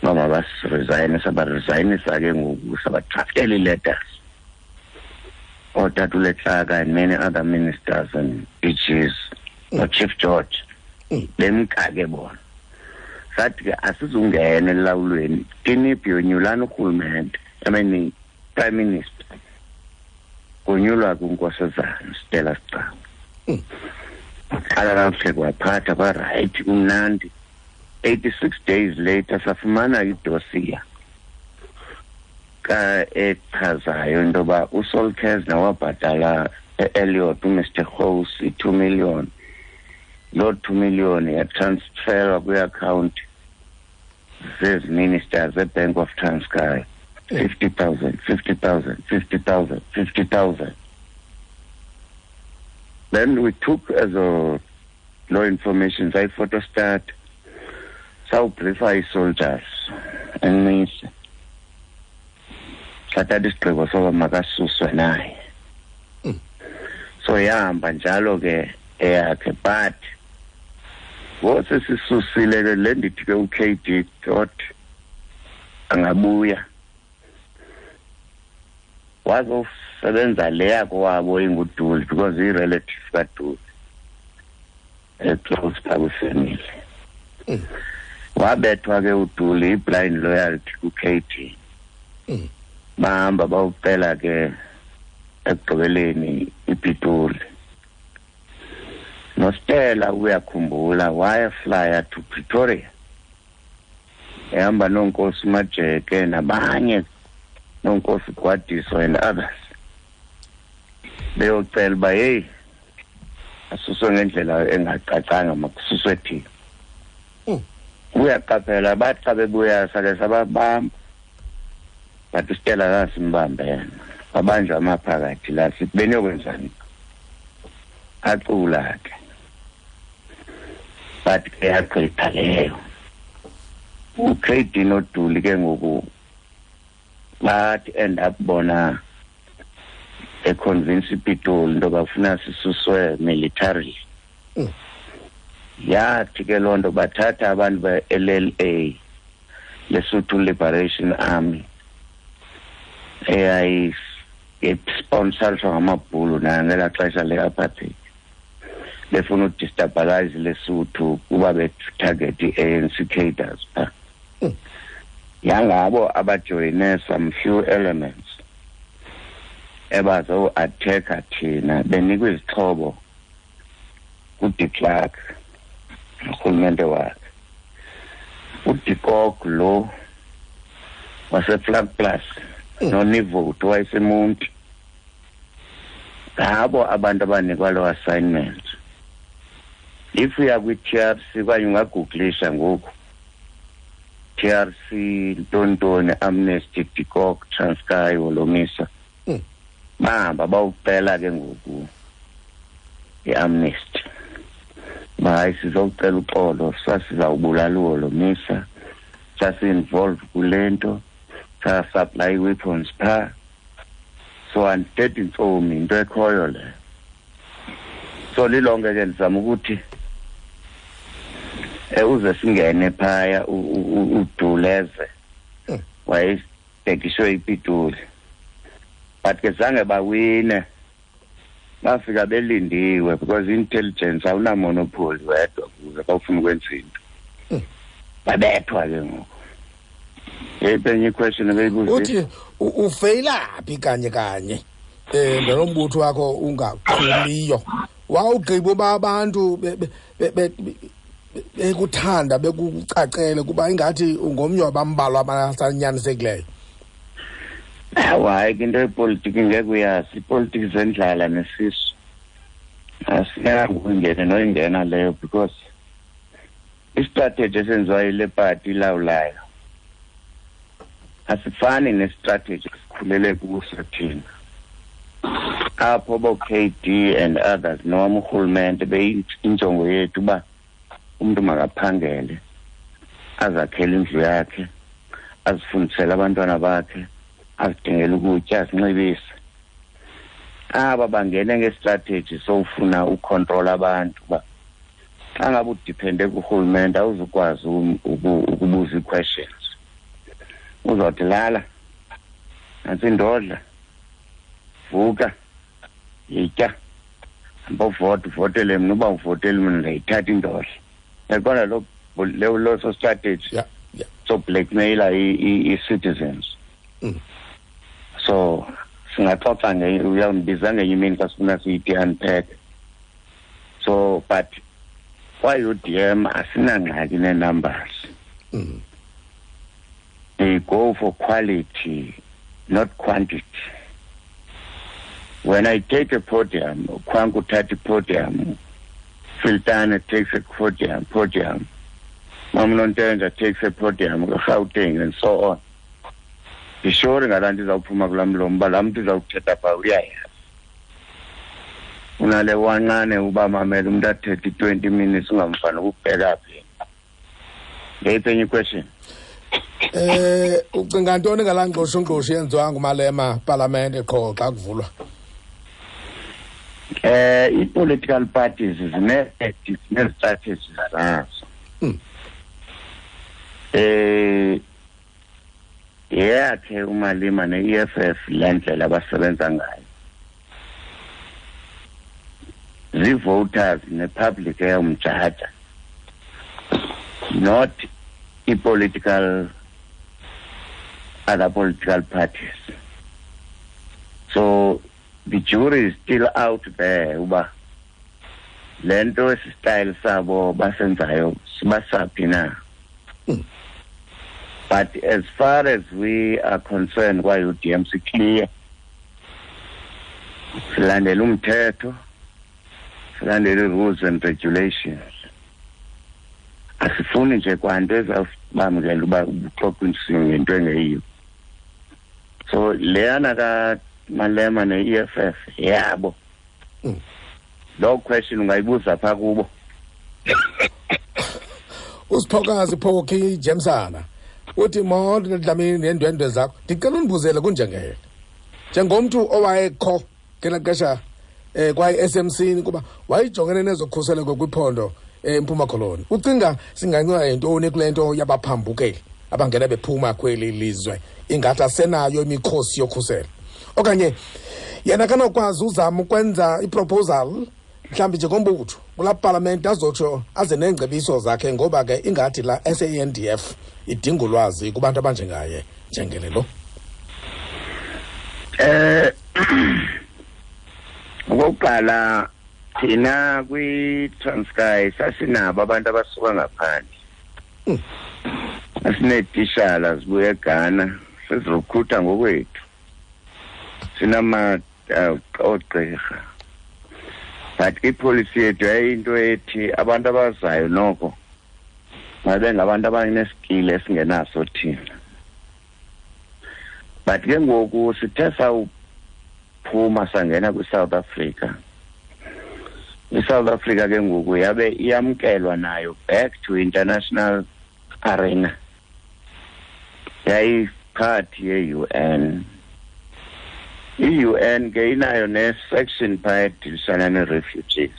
[SPEAKER 3] uba mabasiresigne. Sabaresignisa ke ngoku, sabadraftela ii-letters ootata uLetlaka and many other ministers and DGs, noChief George. Bemka ke bona. Sathi ke asizungena elawulweni, tiniphi yonyulana urhulumente, I mean prime minister, konyulwa kuNkosazana Stella Sigcau. Qala kakuhle, kwaphatha kwarayithi, kumnandi. 86 days later safumana idossier ka echazayo into yoba uSol Kerzner wabhatala e-Elliot uMr Gous i-2 million. Loo 2 million yatransferwa kwi-account zezi ministers eBank of Transkei, 50,000, 50,000, 50,000, 50,000. Then we took as a law information, sayiphotostat, sawubriefa ii-soldiers eNcise, sathatha isigqibo soba makasuswe naye. So yahamba njalo ke eyakhe. But ngosesisusile ke le, ndithi ke u-KD thought angabuya wazosebenza le yakowabo inguDuli, because i-relative kaDuli eclose phaa kwifamily. Wabethwa ke uDuli i-blind loyalty ku-KD. Bahamba bawucela ke ekugqibeleni iPitoli. NoStella uyakhumbula wayeflya to Pretoria ehamba noNkosi Majeke nabanye, noNkosi Gwadiso and others, beyocela uba heyi, asuswe ngendlela engacacanga, makususwe thina. Uyaqaphela, bathi xa bebuya sake sababamba, but uStella kasimbambe yena, wabanjwa amaphakathi la, sithi beniyokwenzani? Acula ke, but ke yagqitha leyo. uKD noDuli ke ngoku bathi end up bona econvince iPitoli into bafuna sisuswe militarily. Yathi ke loo nto bathatha abantu be-LLA, Lesotho Liberation Army, eyayisponsorshwa ngamabhulu nayo ngelaa xesha le-apartheid, befuna udestabilize Lesotho kuba betarget i-ANC cadres phaa. Yangabo abajoyine some few elements ebazo-attacka thina, benikwa izixhobo kuDe Klerk urhulumente wakhe. uDe Kock lo waseVlakplaas noNivout wayeseMonti, ngabo abantu abanikwa lo assignment. If uya kwi-TRC okanye ungagooglisha ngoku TRC ntontoni Amnesty De Kock Transkei Holomisa, bahamba bawucela ke ngoku i-amnesty. Hayi, sizocela uxolo, sasizawubulala uHolomisa, sasi-involve kule nto, sasupply weapons phaa. So andithethi ntsomi, into ekhoyo leyo. So lilonke ke ndizama ukuthi uze singene phaya uduleze wayebhekiswe iPitoli, but ke zange bawine, bafika belindiwe because intelligence awunamonopoly wedwa kuze xa ufuna ukwenza into. Babethwa ke ngoku. Yeyiphi enye iquestion ebeyibuzile?
[SPEAKER 1] Uthi ufeyilaphi kanye kanye ngalo mbutho wakho ungaqhumiyo? Wawugqiba uba abantu bekuthanda bekucacele kuba ingathi ungomnye wabambalwa abasanyanisekileyo.
[SPEAKER 3] Hayi ke into yepolitiki ngeke uyazi, ipolitiki zendlala nesisu. Asinako ukungena noyingena leyo because istrategy esenziwa yile party ilawulayo asifani nestrategy esikhulele kuso thina. Apho bo-KD and others noma urhulumente beyinjongo yethu uba umntu makaphangele, azakhele indlu yakhe, azifundisele abantwana bakhe, azidingele ukutya, azinxibise. Aba bangene ngestrategy sowufuna ucontrol abantu uba xa ngabe udiphende kurhulumente awuzukwazi ukubuza ii-questions. Uzawuthi lala, nantsi indodla, vuka, yitya, hamba uvota, uvotele mna, uba uvotele mna ndayithatha indodla. Yaqonda loso strategy. So blackmailer i-citizens. So singaxoxa uyawundibiza ngenye imini xa sifuna siyithi unpack. So but kwa-UDM asinangxaki nee-numbers. They go for quality, not quantity. When I take a podium, Kwangu thatha podium, Filtane takes a podium, Mamnontenja takes a podium, Gauteng and so on. Ndisure ngalaa nto izawuphuma kulaa mlomo uba laa mntu izawuthetha phaa uyayazi. Unale wancane uba mamela umntu athethe i-20 minutes ungamfani ukubheka phi. Ngeyiphi enye question?
[SPEAKER 1] Ucinga ntoni ngalaa ngqoshongqosho yenziwa nguMalema palamente qho xa kuvulwa?
[SPEAKER 3] I-political parties zine-strategies zazo. Yeyakhe uMalema ne-EFF le ndlela abasebenza ngayo. Zii-voters ne-public eyomjaja, not i-political other political parties. So the jury is still out there uba le nto esi style sabo basenzayo sibasaphi na. But as far as we are concerned kwa-UDM si-clear. Silandela umthetho, silandela i-rules and regulations. Asifuni nje kwanto ezawubamkela uba uxoxa ngento engeyiyo. So leyana kaMalema ne-EFF yabo. Loo question ungayibuza phaa kubo.
[SPEAKER 1] Usiphokazi Phoki Jemsana uthi molo Dlamini neendwendwe zakho, ndicela undibuzele kunjengele njengomntu owayekho ngelaa xesha kwaye-SMC kuba wayejongene nezokhuseleko kwiphondo eMpuma Koloni, ucinga singanceda yintoni kule nto yabaphambukeli abangena bephuma kweli lizwe ingathi asenayo imikhosi yokhuselo? Okanye yena kanokwazi uzama ukwenza iproposal mhlawumbi njengombutho kulaa palamente azotsho aze neengcebiso zakhe, ngoba ke ingathi la SANDF idinga ulwazi kubantu abanjengaye njengele lo.
[SPEAKER 3] Okokuqala thina kwi-Transkei sasinabo abantu abasuka ngaphandle. Asineetishala zibuya eGhana, sizirukhutha ngokwethu. Sinama oogqirha. But ipolicy yethu yayinto ethi abantu abazayo noko mabe ngabantu abaneskill esingenaso thina. But ke ngoku sithe sawuphuma sangena kwi-South Africa. I-South Africa ke ngoku yabe iyamkelwa nayo back to international arena. Yayiphathi ye-UN. I-UN ke inayo ne-section phaya edilisana nee-refugees.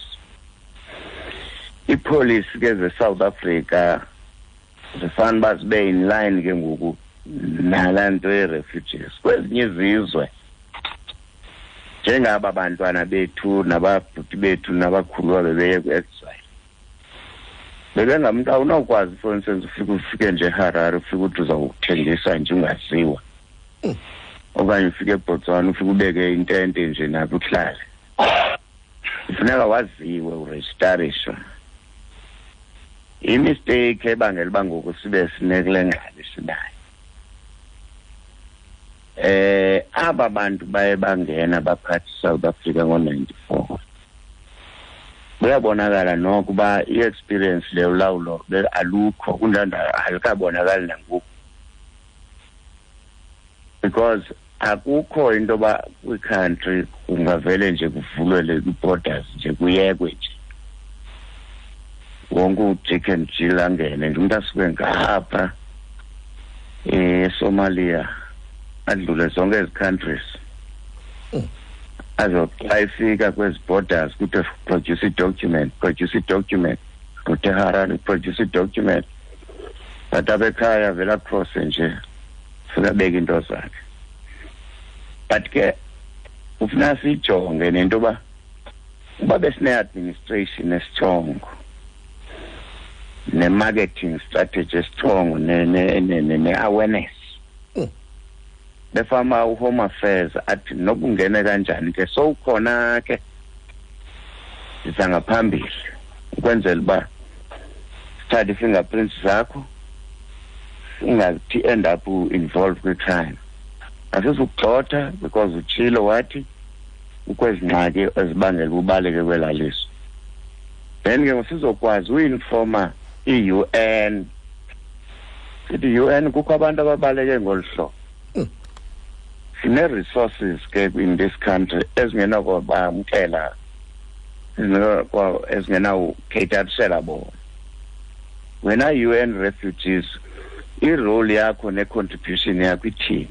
[SPEAKER 3] Iipolisi ke ze-South Africa zifana uba zibe in line ke ngoku nalaa nto ye-refugees. Kwezinye izizwe njengaba bantwana bethu nababhuti bethu nabakhuluwa bebeye kwi-exile, bebengamntu awunawukwazi, for instance, ufike ufike nje eHarare, ufike uthi uzawuthengisa nje ungaziwa, okanye ufike eBotswana ufike ubeke intente nje napho uhlale. Kufuneka waziwe, urejistariswe. Imistake ebangela uba ngoku sibe sinekule ngxaki sinayo, aba bantu baye bangena baphatha iSouth Africa ngo-94, kuyabonakala noko uba i-experience le ulawulo alukho, kunjalo alikabonakali nangoku, because akukho into yoba kwi-country kungavele nje kuvulwe kwi-borders nje kuyekwe nje wonke uJack and Jill angene nje, umntu asuke ngapha eSomalia adlule zonke ezi countries, azoxa efika kwezi borders kuthiwe produce i-document, produce i-document, kuthi eHarare produce i-document, but apha ekhaya vele acrosse nje fika abeke into zakhe. But ke kufuneka siyijonge nento yoba uba besine-administration esitrongo ne-marketing strategy esitrongo ne-awareness, befama uHome Affairs athi nokungena kanjani ke sowukhona ke siza ngaphambili ukwenzela uba sithathe i-fingerprints zakho, ungathi end up involved kwi-crime. Asizukugxotha because utshilo wathi ukwezi ngxaki ezibangela ubaleke kwelaa lizwe. Then ke sizokwazi uinforma i-UN, sithi i-UN kukho abantu ababaleke ngolu hlobo. Sine-resources ke in this country ezingenakubamkela, ezingenawukheyitarisela bona. Wena UN refugees, i-role yakho ne-contribution yakho ithini?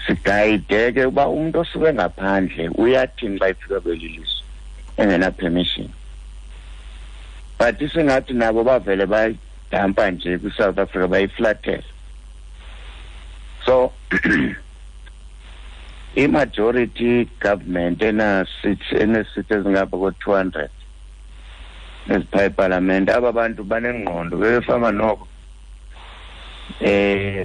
[SPEAKER 3] Sigayide ke uba umntu osuke ngaphandle uyathini xa efika kweli lizwe engena-permission. But isengathi nabo bavele bayidampa nje kwi-South Africa, bayiflathela. So i-majority government ena-seats ezingapha ko-200 ezipha epalamente, aba bantu banengqondo bebefama noko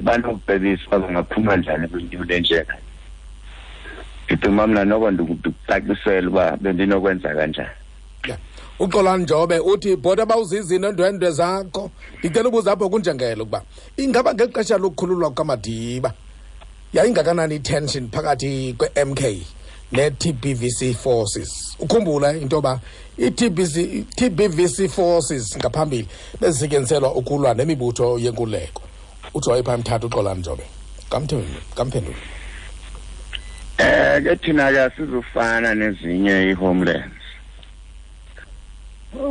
[SPEAKER 3] banokubhebisa uba bangaphuma njani kwinto lenjena. Ndicinga mna noko ndikucacisela uba bendinokwenza kanjani.
[SPEAKER 1] Uxolani Njobe uthi bhota bawuzizi neendwendwe zakho, ndicela ubuza apho kunjengelo ukuba ingaba ngexesha lokukhululwa kukaMadiba yayingakanani i-tension phakathi kwe-MK ne-TBVC forces? Ukhumbula into yoba i-TBVC forces ngaphambili bezisetyenziselwa ukulwa nemibutho yenkululeko. Uthi wayepha mthatha uXolani Njobe. Kamphendule.
[SPEAKER 3] Ke thina ke asizufana nezinye i-homelands.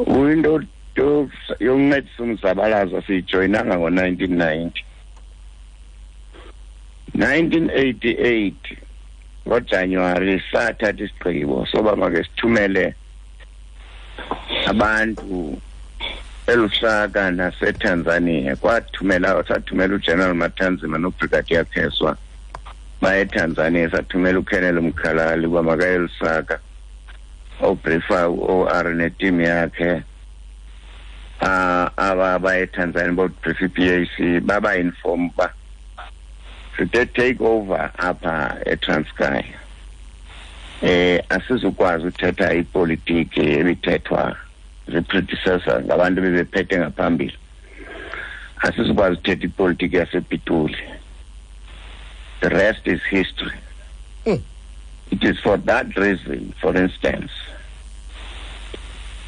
[SPEAKER 3] Into yokuncedisa umzabalazo siyijoyinanga ngo-1990. 1988 ngoJanuwari sathatha isigqibo soba make sithumele abantu eLusaka naseTanzania. Kwathumela sathumela uGeneral Matanzima noBrigadier Kheswa baye eTanzania, sathumela uColonel Mkhalali uba makaye eLusaka obriefa u-OR neteam yakhe. Aba baye eTanzania bobriefa i-PAC, baba-inform uba sithe take over apha eTranskei. Asizukwazi uthetha ipolitiki ebithethwa zii-predecessor ngabantu bebephethe ngaphambili. Asizukwazi uthetha ipolitiki yasePitoli. The rest is history. It is for that reason, for instance,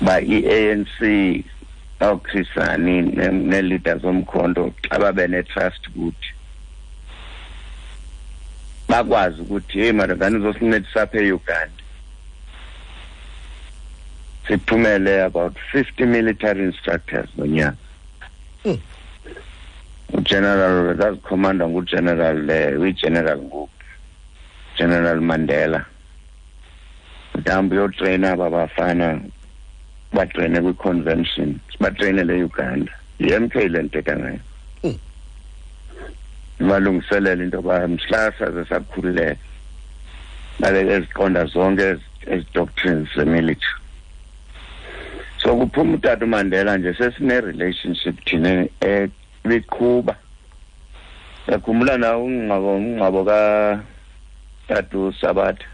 [SPEAKER 3] by i-ANC ooChris Hani nee-leaders zomkhonto xa babe ne-trust kuthi bakwazi ukuthi hey madodana uzosincedisa apha eUganda, sithumele about 50 military instructors ngonyaka. uGeneral zazikhomanda nguGeneral uyiGeneral ngoku. General Mandela mhlawumbi uyotreyina aba bafana batreyine kwi-convention, sibatreyinele e-Uganda. Yi-M K le ndithetha ngayo. Ibalungiselela into yoba mhla saze sakhululeka babe eziqonda zonke ezi doctrines zemilitary. So kuphuma utata uMandela nje, sesine-relationship thina ebiqhuba. Yakhumbula na umngcwabo katata uSabatha?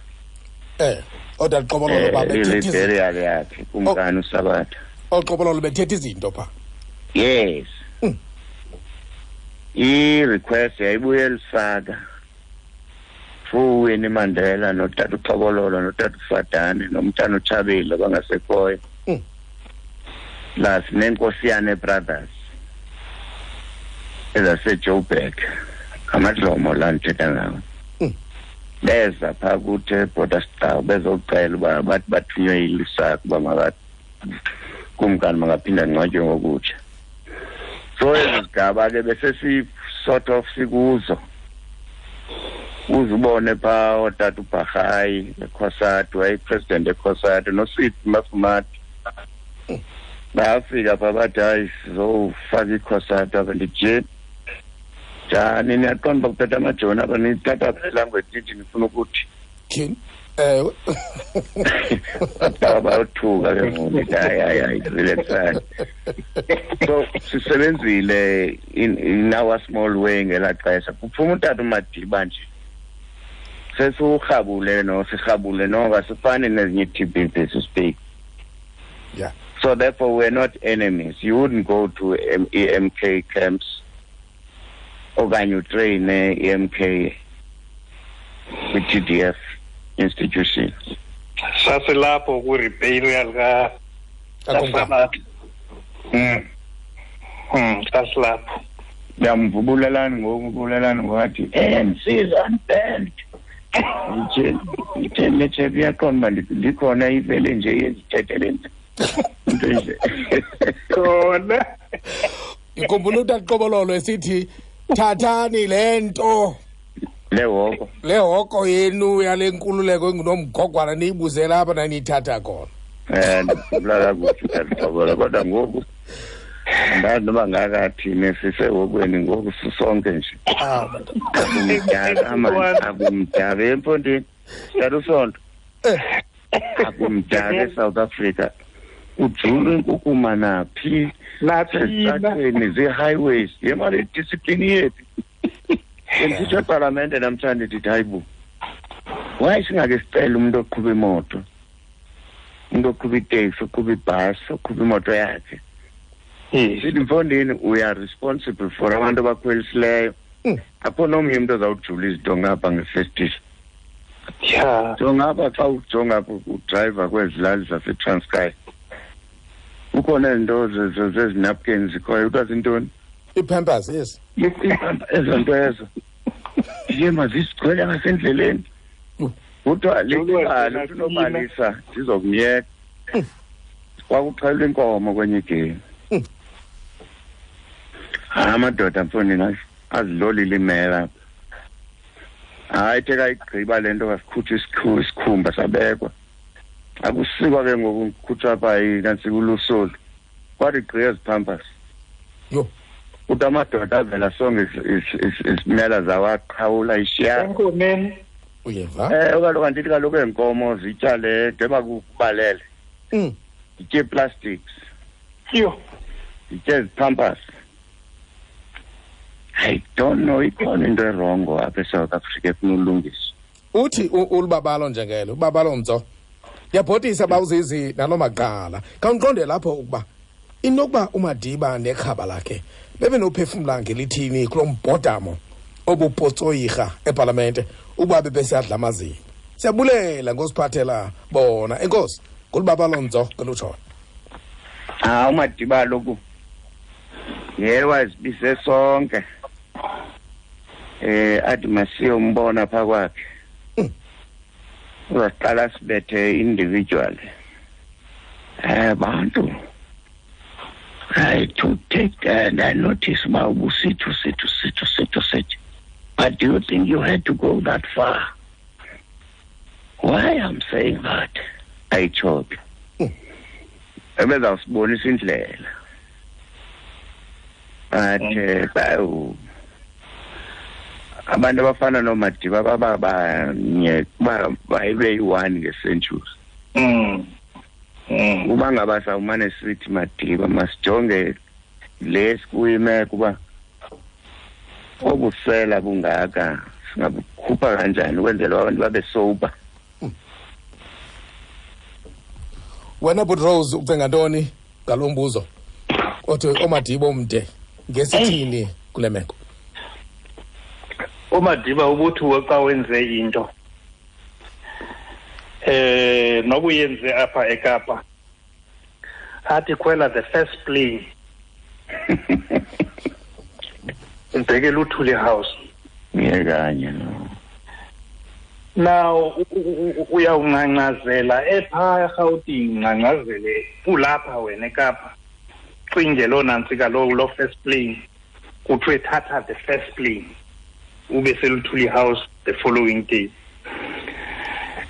[SPEAKER 1] Odwa Qobololo babethetha izinto.
[SPEAKER 3] Burial yakhe, kumkani uSabatha.
[SPEAKER 1] Oqobololo bethetha izinto pha.
[SPEAKER 3] Yes. I-request yayibuye eLusaka through Winnie Mandela notata uXokololo notata uFadane nomntana uTshabile abangasekhoyo. Plus neNkosiyane Brothers ezaseJoburg, amadlomo la ndithetha ngawo. Beza phaa kuthi eBorder Star bezocela uba bathi bathunywe yiLusaka uba kumkani makaphinda angcwatywe ngokutsha. So ezi zigaba ke besesi sort of sikuzo. Uzubone phaa ootata uBharhayi eCOSATU, wayeyipresident eCOSATU, noSweet Mafumati. Bafika phaa bathi hayi sizofaka iCOSATU apha. Ndithi njani, niyaqonda uba kuphethe amajoni apha, nithatha phi le language nithi nifuna ukuthi?
[SPEAKER 1] Tyhini, ewe.
[SPEAKER 3] Bayothuka ke ngoku, ndithi hayi, hayi, hayi, relaxani. So sisebenzile in our small way ngelaa xesha. Kuphuma utata uMadiba nje, sesiwurhabule no, sirhabule noko, asifani nezinye ii-T B P to speak. So therefore we're not enemies. You wouldn't go to E M K camps okanye utreyine E M K kwi-T D F institution.
[SPEAKER 4] Sasilapho kwi-reburial
[SPEAKER 1] Kakumkani.
[SPEAKER 4] Sasilapho.
[SPEAKER 3] Ndiyamvubulelani ngoku, ubulelani ngoku, A N C is unbanned. Ndithe letshe iyaqonda uba ndikhona ivele nje yezithethele into nje.
[SPEAKER 4] Khona.
[SPEAKER 1] Ndikhumbula utata Qobololo esithi thathani le nto.
[SPEAKER 3] Le hoko.
[SPEAKER 1] Le hoko yenu yale nkululeko engunomgogwana niyibuzela apha naniyithatha khona.
[SPEAKER 3] Ndikhumbula kakuhle utata Qobololo, kodwa ngoku andazi noba ngakathini, sisehokweni ngoku sisonke nje. Akumdaka mani, akumdaka emfondini. Tata uSonto. Akumdaka eSouth Africa. Ujulwe inkukuma naphi?
[SPEAKER 4] Naphi?
[SPEAKER 3] Ezitratweni, zii-highways. Ye mali discipline yethu. Bendithetha epalamente namhlanje ndithi hayi bo. Why singake sicele umuntu oqhuba imoto? Umuntu oqhuba iteksi, oqhuba ibhasi, oqhuba imoto yakhe. Sithi mfondini, we are responsible for abantu abakhwelisileyo. Akho nomnye umuntu ozawujula izinto ngapha ngefestile. So ngapha xa ujonga udrayiva kwezi lali zaseTranskei, kukhona izinto zezinapkins zikhoyo, kuthiwa zintoni?
[SPEAKER 1] Ii-Pampers, yes.
[SPEAKER 3] Ezo nto ezo. Ndiye mazisigcwele ngasendleleni. Kuthiwa lixhala, ufuna ubalisa, ndizokumyeka. Kwakuxhelwa inkomo kwenye igemi. Hayi, amadoda mfondini azilolile imela. Hayi, ithe kayigqiba le nto kasikhutshwa isikhumba sabekwa. Akusikwa ke ngoku kukhutshwa apha nantsi kulusolu. Kwathi gqi ezi Pampers. Kuthi amadoda avela sonke izimela zawaqhawula ishiya.
[SPEAKER 4] Enkomeni.
[SPEAKER 1] Uyeva?
[SPEAKER 3] Kaloku andithi kaloku eenkomo zitya le njengoba kubalele. Zitye plastics. Zitye ezi Pampers. I don't know, ikhona into erongo apha eSouth Africa efuna ulungiswa.
[SPEAKER 1] Uthi ulubabalo njengelo, ubabalo mtso. Ndiyabhotisa bawuzizi nalo maqala. Khawundiqonde lapho ukuba inokuba uMadiba nekhaba lakhe bebenophefumla ngelithini kulo mbhodamo obupotsoyirha epalamente ukuba bebesadla amazinyo. Siyabulela ngosiphathela bona. Enkosi ngolubabalo mtso ngelutshoyo.
[SPEAKER 3] uMadiba loku yena wazibise sonke. Athi masiyombona pha kwakhe. Uzaqala sibethe individual. Bantu. I to take and I notice my ubusithi, usithi, usithi, usithi, usithi. But do you think you had to go that far? Why I'm saying that? Ayitsho ke. Ebezawusibonisa indlela. But abantu abafana noMadiba bababanye bayibe yi-one nge-century. Uba ngaba sawumane sithi Madiba, masijonge le sikuyimeko uba obusela bungaka singabukhupha kanjani ukwenzela abantu babe sober.
[SPEAKER 1] Wena Bhut Rose, ucinga ntoni ngalo mbuzo othi oMadiba omde ngesithini kule meko?
[SPEAKER 4] uMadiba ubuthi xa wenze into nobuyenze apha eKapa, athi khwela the first plane ubheke Luthuli House.
[SPEAKER 3] Ngiyekanye no.
[SPEAKER 4] Now uyawungcangcazela epha eRhawutini, ngcangcazele kulapha wena eKapa, cinge loo nantsika lo first plane, kuthiwe thatha the first plane ube seLuthuli House the following day.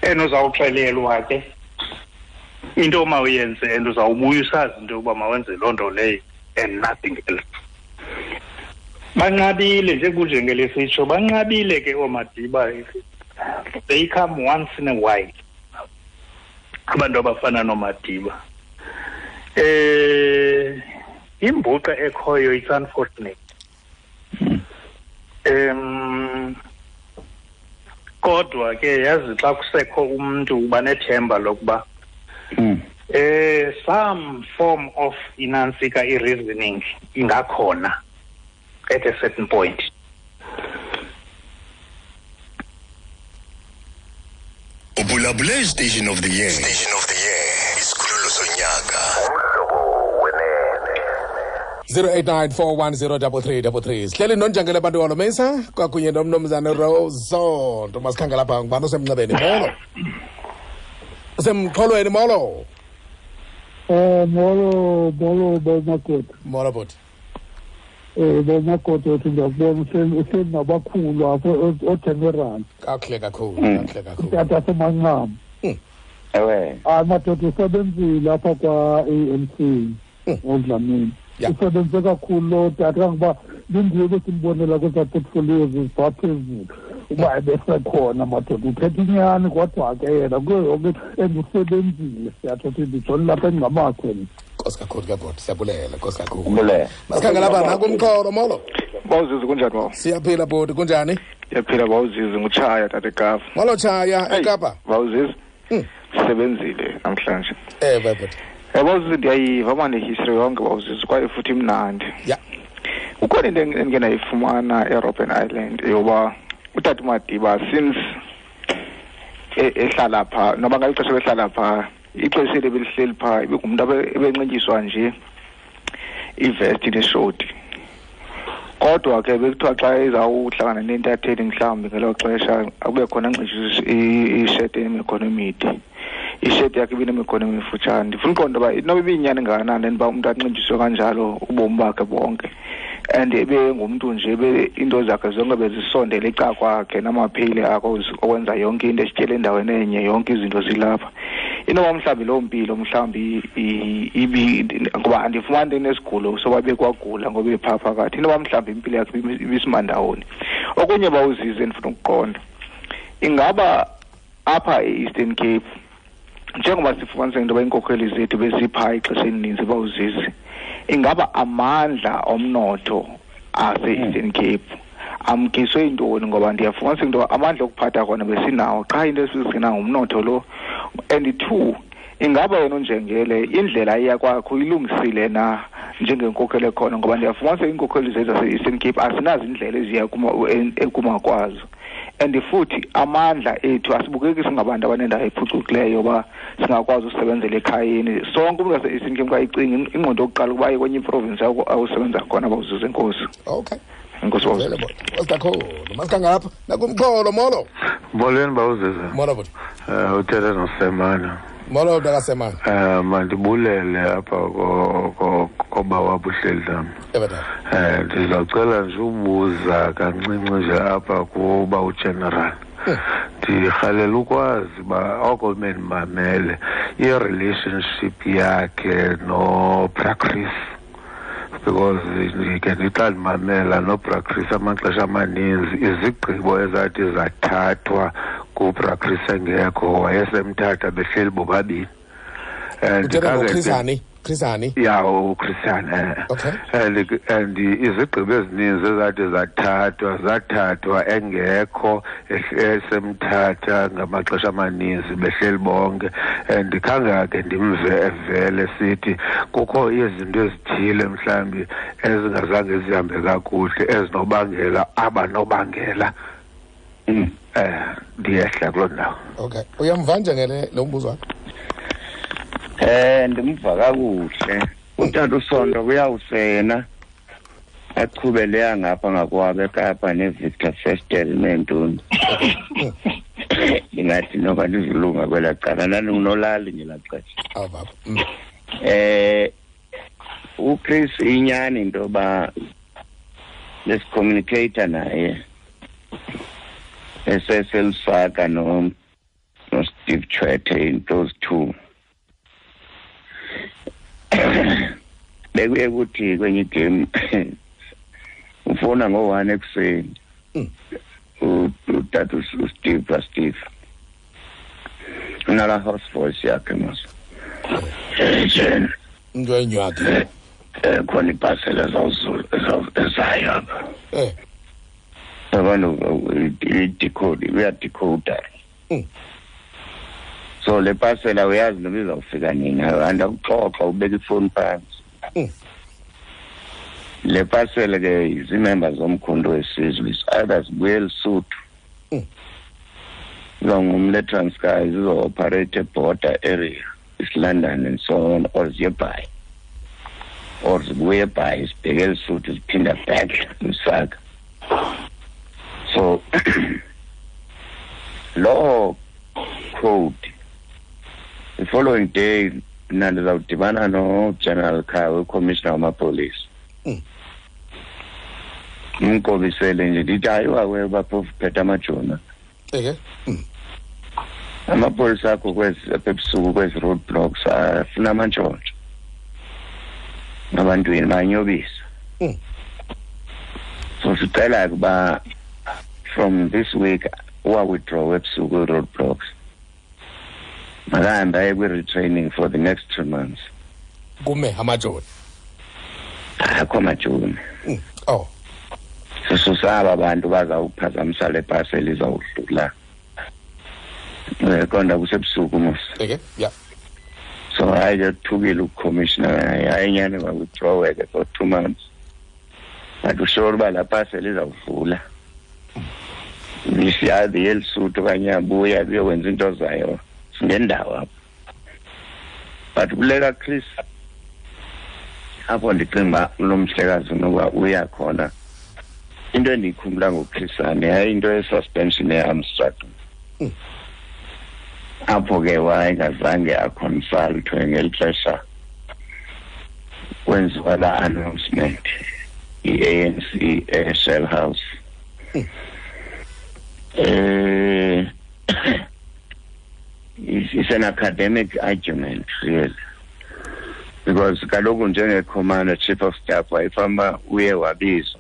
[SPEAKER 4] And uzawuxelelwa ke into omawuyenze, and uzawubuya usazi into yokuba mawenze loo nto leyo and nothing else. Banqabile nje kunjengelesitsho, banqabile ke ooMadiba. They come once in a while, abantu abafana noMadiba. Imbuqa ekhoyo, it's unfortunate. Kodwa ke yazi xa kusekho umntu uba nethemba lokuba some form of inantsika i-reasoning ingakhona at a certain point.
[SPEAKER 7] Ubulabule Station of the Year. Station of the Year. Isikhululo sonyaka.
[SPEAKER 1] 0894103333. Sihleli nonjangele abantu walomesa kwakunye nomnumzane Rose. Masikhangela lapha ngubani osemnxebeni? Molo. Usemxholweni, molo.
[SPEAKER 13] Molo, molo bomakoti.
[SPEAKER 1] Molo bhuti.
[SPEAKER 13] Bomakoti uthi ndiyakubona uhleli nabakhulu apho ogeneral.
[SPEAKER 1] Kakuhle kakhulu, kakuhle kakhulu.
[SPEAKER 13] Tata semanqam.
[SPEAKER 3] Ewe.
[SPEAKER 13] Hayi madoda, usebenzile apha kwa-ANC ngoDlamini. Usebenze kakhulu lo tata, kangoba lindiwe besimbonela kwezaa portfolios ziphaa phezulu uba ebesekhona madoda, uthetha inyani kodwa ke yena kuyo yonke and usebenzile, siyatsho ukuthi ndijonge lapha engamakhe.
[SPEAKER 1] Nkosi kakhulu ke bhuti, siyabulela, nkosi kakhulu. Masikhangela lapha nakumxholo, molo.
[SPEAKER 14] Bawuzizi, kunjani bawo?
[SPEAKER 1] Siyaphila bhuti, kunjani?
[SPEAKER 14] Siyaphila bawuzizi, ngutshaya tata eKapa.
[SPEAKER 1] Molo Tshaya, eKapa.
[SPEAKER 14] Bawuzizi, sisebenzile namhlanje.
[SPEAKER 1] Ewe bhuti.
[SPEAKER 14] Bawuzizi, ndiyayiva mane history yonke bawuzizi, kwaye futhi imnandi.
[SPEAKER 1] Ya.
[SPEAKER 14] Kukhona into endike ndayifumana eRobben Island yoba utata uMadiba since ehlala phaa, noba ngeli xesha behlala phaa, ixesha eli belihleli phaa ibingumntu ebenxityiswa nje ivesti neshoti. Kodwa ke bekuthiwa xa ezawuhlangana nentatheli mhlawumbi ngelo xesha akube khona anxityiswe isheti enemikhono emide. Isheti yakhe ibinemikhono emifutshane. Ndifuna uqonda uba inoba ibiyinyani ngakanani uba umntu anxityiswe kanjalo ubomi bakhe bonke. And ebengumntu nje into zakhe zonke bezisondele ecakwakhe namaphile akho okwenza yonke into, esityele endaweni enye, yonke izinto zilapha. Inoba mhlawumbi loo mpilo mhlawumbi ibi ngoba andifumani into enesigulo soba bekwagula ngoba ephaa phakathi, inoba mhlawumbi impilo yakhe ibisimandawoni. Okunye bawuzize ndifuna ukuqonda, ingaba apha e-Eastern Cape njengoba sifumanise into yoba iinkokheli zethu beziphaa ixesha elininzi bawuzizi, ingaba amandla omnotho ase-Eastern Cape amkiswe intoni? Ngoba ndiyafumanisa into amandla okuphatha kona besinawo, qha into esizigcina ngumnotho lo. And two, ingaba yena uNjengele indlela iya kwakho ilungisile na njengenkokheli ekhona? Ngoba ndiyafumanisa iinkokheli zethu zase-Eastern Cape asinazo indlela eziya ekuma kwazo. And futhi amandla ethu asibukeki singabantu abanendawo ephucukileyo uba singakwazi usebenzela ekhayeni. Sonke umntu wase-Eastern Cape xa icinga ingqondo yokuqala ukuba aye kwenye iprovinsi awusebenza khona bawuzuza. Enkosi.
[SPEAKER 1] Okay.
[SPEAKER 14] Enkosi bawuzuza.
[SPEAKER 1] Nkosi kakhulu. Masikhangela lapha nakumxholo, molo.
[SPEAKER 15] Molweni bawuzuza.
[SPEAKER 1] Molo bhuti.
[SPEAKER 15] Uthetha noSemana.
[SPEAKER 1] Molo mntakaSemana.
[SPEAKER 15] Mandibulele apha koba wabuhleli nam. Ndizawucela nje ubuza kancinci nje apha kuba ugeneral. Ndirhalela ukwazi uba oko bendimamele i-relationship yakhe noBra Chris, because ndike ndixa ndimamela noBra Chris amaxesha amaninzi izigqibo ezathi zathathwa kuBra Chris engekho, wayesemthatha behleli bobabini. And
[SPEAKER 1] Uthetha ngoChris Hani? Chris Hani?
[SPEAKER 15] Ya, uChris Hani.
[SPEAKER 1] Okay.
[SPEAKER 15] And izigqibo ezininzi ezathi zathathwa engekho, esemthatha ngamaxesha amaninzi behleli bonke. And khange ke ndimve evele sithi kukho izinto ezithile mhlawumbi ezingazange zihambe kakuhle ezinobangela abanobangela. Ndiyehla kuloo ndawo.
[SPEAKER 1] Okay. Uyamva njengele lo mbuzo wakho?
[SPEAKER 3] Ndimva kakuhle. Utata uSonto kuyawusena aqhube leya ngapha ngakwabo eKapa neVictor Festel neentoni. Ndingathi noba ndizilunga kwelaa cala, ndandingunolali ngelaa xesha.
[SPEAKER 1] Awu baba.
[SPEAKER 3] uChris inyani into yoba lesicommunicator naye eseselusaka no Steve Tshwete in those two. Bekuye kuthi kwenye igame ufona ngo-1 ekuseni utata uSteve Steve unala house voice yakhe mos.
[SPEAKER 1] Into enywakhe
[SPEAKER 3] khona ibhasela ezawuzulu ezayo apha. Abantu i-decode uyadecoda. So le pasela uyazi noba izawufika nini, andakuxoxa ubeka ifoni phantsi. Le pasela ke zii-members zomkhonto wesizwe, is either zibuye eLesotho, izawungumle Transkei, zizo-operate eborder area, East London and so on, or ziye Bhayi, or zibuye eBhayi zibheke eLesotho ziphinda back Lusaka. So loo code, the following day mna ndizawudibana noGeneral Khawe, ucommissioner wamapolisa. Ndimqobisele nje ndithi hayi wawe baphofu phethe amajoni. Amapolisa akho kwezi apha ebusuku kwezi road blocks afuna amantshontsho abantwini banyobisa. So sicela ukuba from this week uwa-withdraw ebusuku road blocks. Makahambe aye kwi-retraining for the next 2 months.
[SPEAKER 1] Kume amajoni?
[SPEAKER 3] Akho amajoni.
[SPEAKER 1] Oh.
[SPEAKER 3] Sisaba abantu bazawuphazamisa le parcel izawudlula. Konda kusebusuku mos.
[SPEAKER 1] Okay, yeah.
[SPEAKER 3] So hayi ke thukile ucommissioner, hayi nyani ba-withdraw ke for 2 months. But usure uba la parcel izawudlula. Isiyazi yelisuthu okanye abuya kuyokwenza into zayo ngendawo apho. But kuleka Chris apho ndicinga uba lo mhlekazi noba uya khona. Into endiyikhumbula ngoChris Hani yayinto ye-suspension ye-Amstrad. Apho ke wayengazange aconsultwe ngeli xesha kwenziwa la announcement i-ANC eShell House. It's an academic argument, really. Because kaloku njenge-commander, chief of staff, wayefamba uye wabizwa.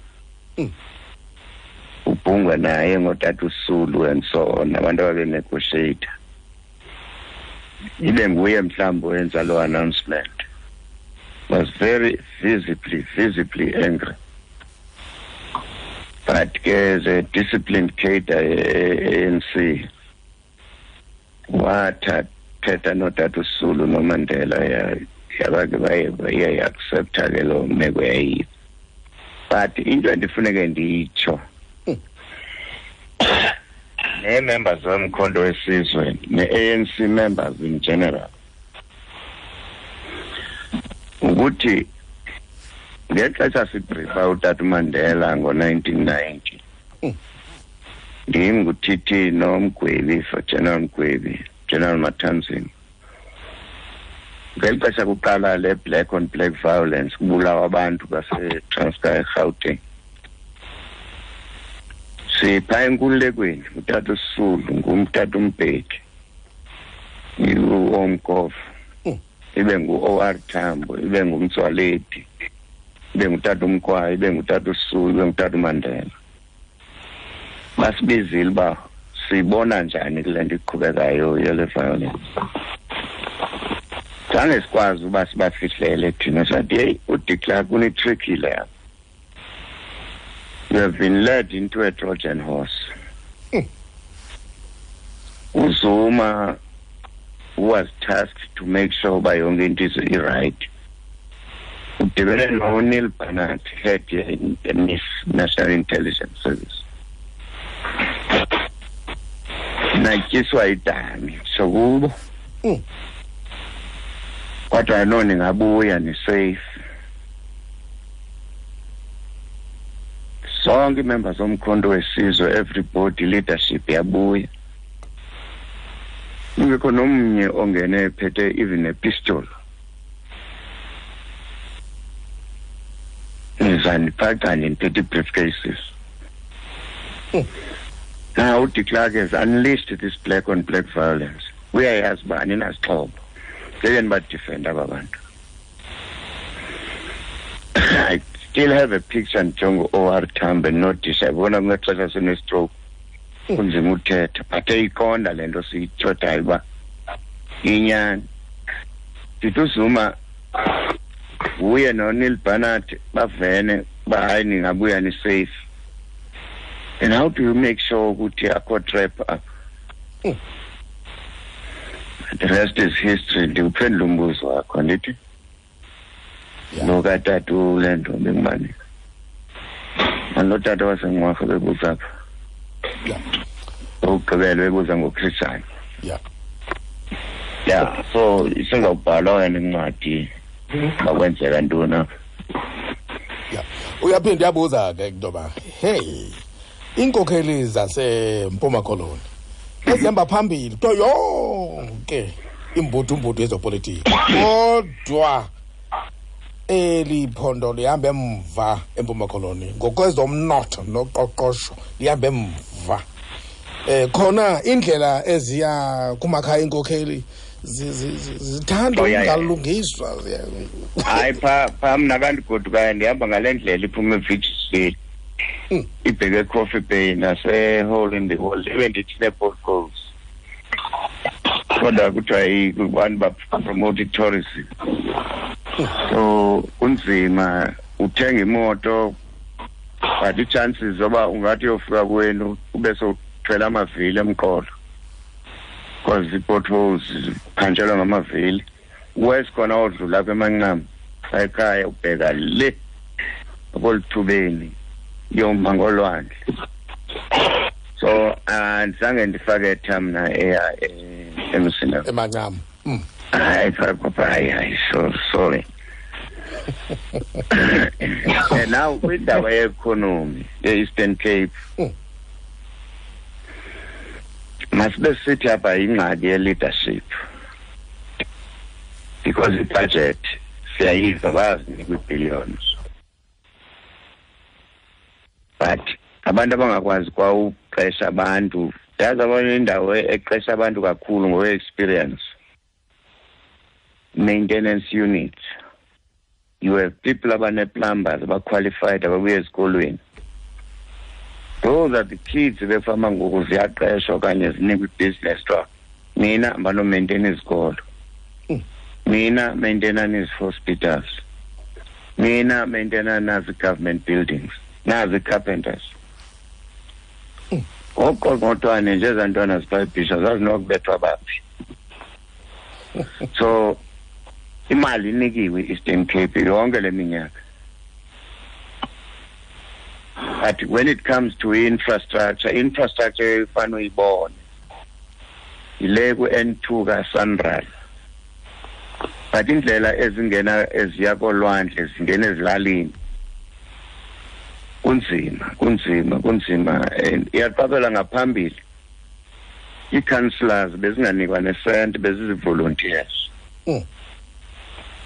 [SPEAKER 3] Ubhungwa naye ngotata uSulu and so on, abantu ababenegotiate. Ibe nguye mhlawumbi owenza loo announcement. Was very visibly angry. But ke the disciplined cadre ANC wathathetha notata uSulu noMandela yabake baye accepta ke loo meko yayiyo. But into endifuneke ndiyitsho nee-members zomkhonto wesizwe ne-ANC members in general ukuthi ngexesha sibriefa utata uMandela ngo-1990 ndim nguTT noMgwebi, for General Mgwebi, General Matanzima. Ngeli xesha kuqala le black on black violence kubulawa abantu baseTranskei eGauteng. Sipha enkululekweni, utata uSisulu, ngumtata uMbeki, uOmkhovu, ibe ngu-OR Tambo, ibe nguMtswaledi, ibe ngutata uMkwayi, ibe ngutata uSisulu, ibe ngutata uMandela. Basibizile uba sibona njani kule nto iqhubekayo yele violence. Zange sikwazi uba sibafihlele thina, sathi heyi, uDe Klerk une-trick le. You have been led into a Trojan horse. UZuma was tasked to make sure uba yonke into is right. Udibene noNeil Barnard, head ye-NIS, National Intelligence Service. Natyiswa idami sokubo. Kodwa no, ningabuya ni-safe. Sonke ii-members zoMkhonto weSizwe, everybody, leadership yabuya. Kungekho nomnye ongene ephethe even a pistol. Nizandiphaca niphethe ii-briefcases. Now uDe Klerk has unleashed this black on black violence. Uyayazi uba aninazixhobo. Ngeke nibadefend aba bantu. I still have a picture ndijonge u-OR Tambo noDisha. Yabona ngexesha sine-stroke. Kunzima uthetha, but eyiqonda le nto siyithethayo uba inyani. Ndithi uZuma uye noNeil Barnard bavene uba hayi ningabuya ni-safe. And how do you make sure ukuthi akho trap apha? The rest is history. Ndiwuphendula umbuzo wakho, andithi? Lo katata ule nto bengubani? Lo tata waseNgqwarha bebuza apha. Okugqibela bebuza ngoChristian. Yeah, so isengawubhalwa wena incwadi bakwenzeka ntoni apha.
[SPEAKER 1] Uyaphinda uyabuza ke into yoba hey, iinkokheli zaseMpuma Koloni ezihamba phambili kuyo yonke imbudumbudu yezopolitiko, kodwa eli phondo lihamba emva eMpuma Koloni ngokwezomnotho noqoqosho, lihamba emva. Khona indlela eziya kumakhaya iinkokheli zithanda ukungalungiswa.
[SPEAKER 3] Hayi, pha mna kandigodukayo ndihamba ngale ndlela iphuma eVictory ibheke eCoffee Bay nase-Hole in the Wall, ibe ndithi nee-potholes, kodwa kuthiwa abantu bapromote i-tourism, so kunzima uthenga imoto, but ii-chances zoba ungathi uyofika kwenu ube sowuthwele amavili emqolo because ii-potholes ziphantshelwa ngamavili. Wes khona odlula apha eMancama ekhaya ubheka le akolithubeni yoma ngolwandle. So andizange ndifake tha mna eya emsina
[SPEAKER 1] eMancama.
[SPEAKER 3] Hayi, hayi, hayi, so sorry. And now kwindaba ye-economy ye-Eastern Cape, masibe sithi apha yingxaki ye-leadership, because i-budget siyayiva bayazinika ii-billions, but abantu abangakwazi kwa uqesha abantu, yazi abanye indawo eqesha abantu kakhulu ngokwe-experience, maintenance units. You have people abane-plumbers abaqualified ababuya ezikolweni. Those are the kids befama ngoku ziyaqeshwa okanye zinikwa ibhizinesi kuthiwa nina banomaintain izikolo, nina maintainani ezi-hospitals, nina maintainani nazi government buildings, nazi carpenters. Oqongqothwane nje ezaa ntwana zipayibhisha zazinokubethwa baphi. So imali inikiwe i-Eastern Cape yonke le minyaka, but when it comes to infrastructure, infrastructure efana uyibone yile ku-N2 kaSANRAL, but indlela ezingena eziya kolwandle zingena ezilalini kunzima, kunzima, kunzima. And iyaqabela ngaphambili ii-councillors bezinganikwa nesenti, bezizi-volunteers.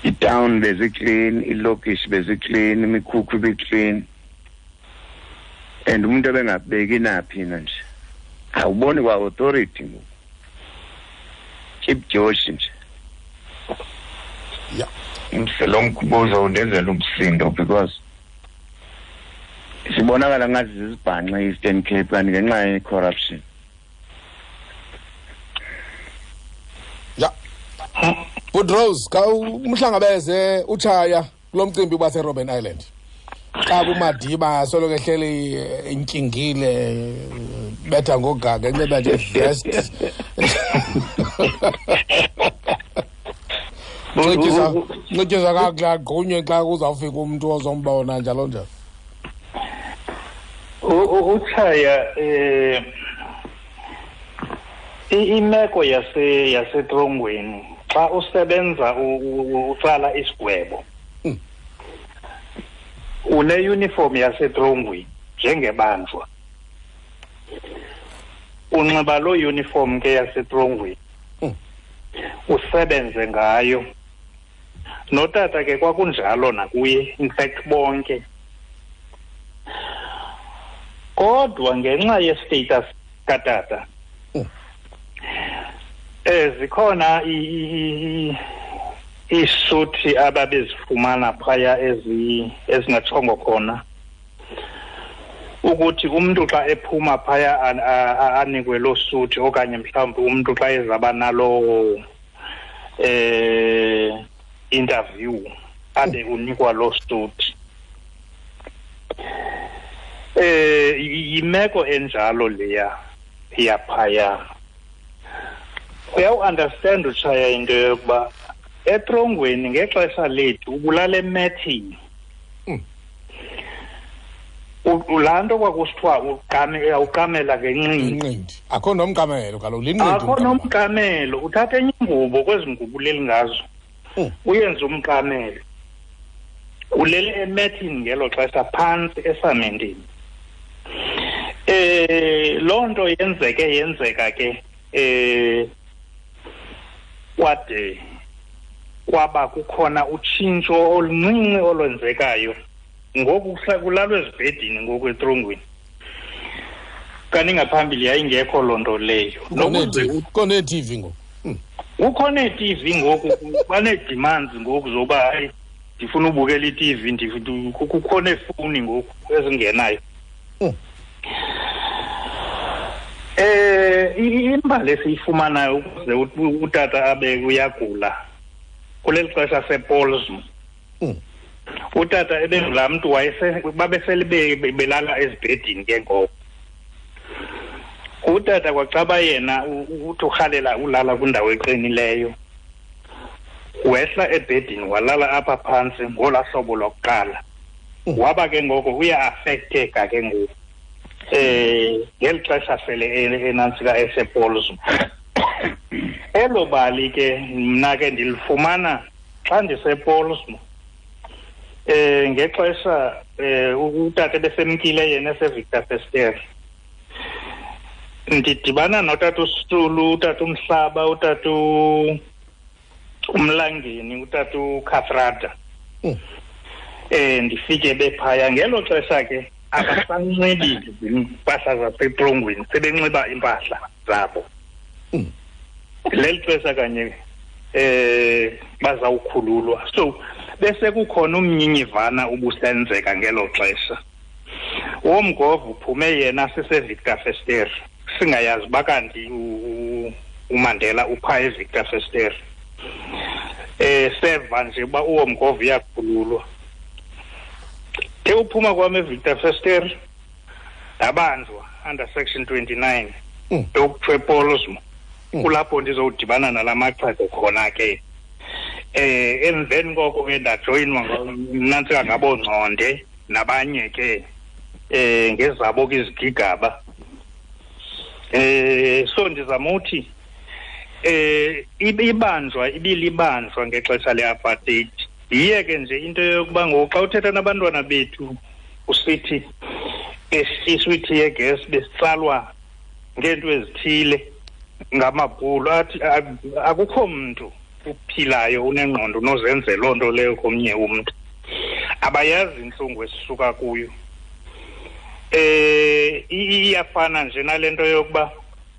[SPEAKER 3] I-town beziclean, ilokishi beziclean, imikhukhu ibiclean. And umuntu ebengabeki naphi na nje, awuboni kwa authority ngoku, Chief Josh nje. Lo mbuzo undenzela umsindo because sibonakala ngathi zizibhanxe i-Eastern Cape, kanti ngenxa ye-corruption.
[SPEAKER 1] Ya, Good Rose, ka umhlangabeze utshaya kulo mcimbi baseRobben Island, xa kuMadiba soloko ehleli intyingile, betha ngogaga, enxiba nje vest, ncityiswa kakuhle, agqunywe xa kuzawufika umntu ozombona, njalo njalo.
[SPEAKER 4] Utshaya, imeko yasetrongweni xa usebenza utsala isigwebo, une-uniform yasetrongweni njengebanjwa, unxiba loo uniform ke yasetrongweni, usebenze ngayo. Notata ke kwakunjalo nakuye, in fact bonke. Kodwa ngenxa ye-status katata, zikhona iisuti ababezifumana phaya ezingatshongo khona ukuthi umntu xa ephuma phaya anikwe loo suti, okanye mhlawumbi umntu xa ezaba naloo interview abe unikwa loo suti. Yimeko enjalo leya yaphaya. Uyawu-understand utshaya into yokuba etrongweni ngexesha lethu ubulala emethini. Laa nto kwakusithiwa uqamela ngenqindi.
[SPEAKER 1] Akho nomqamelo kaloku, linqindi.
[SPEAKER 4] Akho nomqamelo, uthatha enye ingubo kwezi ngubo uleli ngazo, uyenze umqamelo. Ulele emethini ngelo xesha phantsi esamentini. Loo nto yenzeka ke kwade kwaba kukhona utshintsho oluncinci olwenzekayo. Ngoku kulalwa ezibhedini ngoku etrongweni, kanti ngaphambili yayingekho loo nto leyo.
[SPEAKER 1] Kukho nee-TV ngoku.
[SPEAKER 4] Kukho nee-TV ngoku, banee-demands ngoku zoba hayi ndifuna ubukela i-TV, kukho neefowuni ngoku ezingenayo. Imbali esiyifumanayo ukuze utata abe uyagula kuleli xesha sePolsmo, utata ebengulaa mntu babesele belala ezibhedini ke ngoko. Utata kwacaba yena uthi urhalela ulala kwindawo eqinileyo, wehla ebhedini walala apha phantsi ngolaa hlobo lokuqala. Waba ke ngoko uya-affecteka ke ngoku ngeli xesha sele enantsika esePolsmo. Elo bali ke mna ke ndilifumana xa ndisePolsmo, ngexesha utata besemkile yena eseVictor Verster. Ndidibana notata uSitulu, utata uMhlaba, utata uMlangeni, utata uKathrada. Ndifike bephaya ngelo xesha ke abasanxibi iimpahla zasetrongweni, sebenxiba iimpahla zabo. Leli xesha kanye bazawukhululwa. So bese kukhona umnyinyivana ubusenzeka ngelo xesha. Womgovu uphume yena siseVictor Verster, singayazi uba kanti uMandela upha eVictor Verster. Seva nje uba uwomgovu uyakhululwa. Ke uphuma kwam eVictor Verster ndabanjwa under section 29 yokuthiwa ePolsmo. Kulapho ndizowudibana nala maxhego khona ke. Emveni koko ke ndajoyinwa nantsika ngaboongconde nabanye ke ngezabo ke izigigaba. So ndizama uthi ibanjwa ibilibanjwa ngexesha le-apartheid. Yiye ke nje into yokuba ngoku xa uthetha nabantwana bethu usithi esiswithi yegas besitsalwa ngeento ezithile ngamabhulu, athi akukho mntu uphilayo unengqondo unozenze loo nto leyo komnye umntu. Abayazi intlungu esisuka kuyo. Iyafana nje nalento yokuba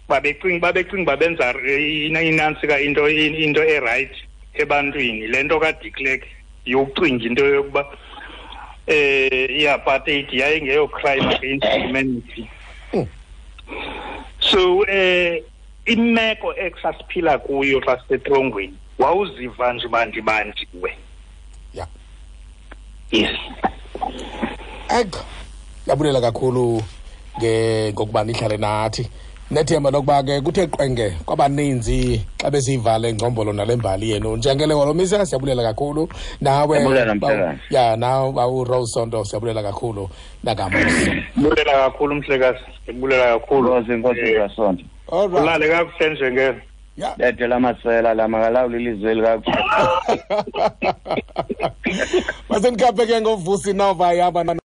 [SPEAKER 4] babecinga benza inantsika into e-right ebantwini. Le nto kaDe Klerk yokucinga into yokuba i-apartheid yayingeyo crime against humanity. So imeko esasiphila kuyo xa sisetrongweni wawuziva nje bandibanjiwe.
[SPEAKER 1] Yeah.
[SPEAKER 4] Yes.
[SPEAKER 1] Yabulela kakhulu ngokuba nihlale nathi. Nethemba lokuba ke kuthe qwenge kwabaninzi xa besiyivale ngcombolo nale mbali yenu. Njengele Holomisa siyabulela kakhulu nawe. Ya nawe bawu Rose Sonto siyabulela kakhulu nakamuso.
[SPEAKER 4] Bulela kakhulu mhlekazi. Bulela kakhulu.
[SPEAKER 3] Inkosi kaSonto.
[SPEAKER 1] All right.
[SPEAKER 4] Ulale kakuhle njengele.
[SPEAKER 1] Yeah.
[SPEAKER 3] Bethe lamasela lamakalawula ilizwe likakuhle.
[SPEAKER 1] Masenikaphe ke ngoVusi Nova yaba.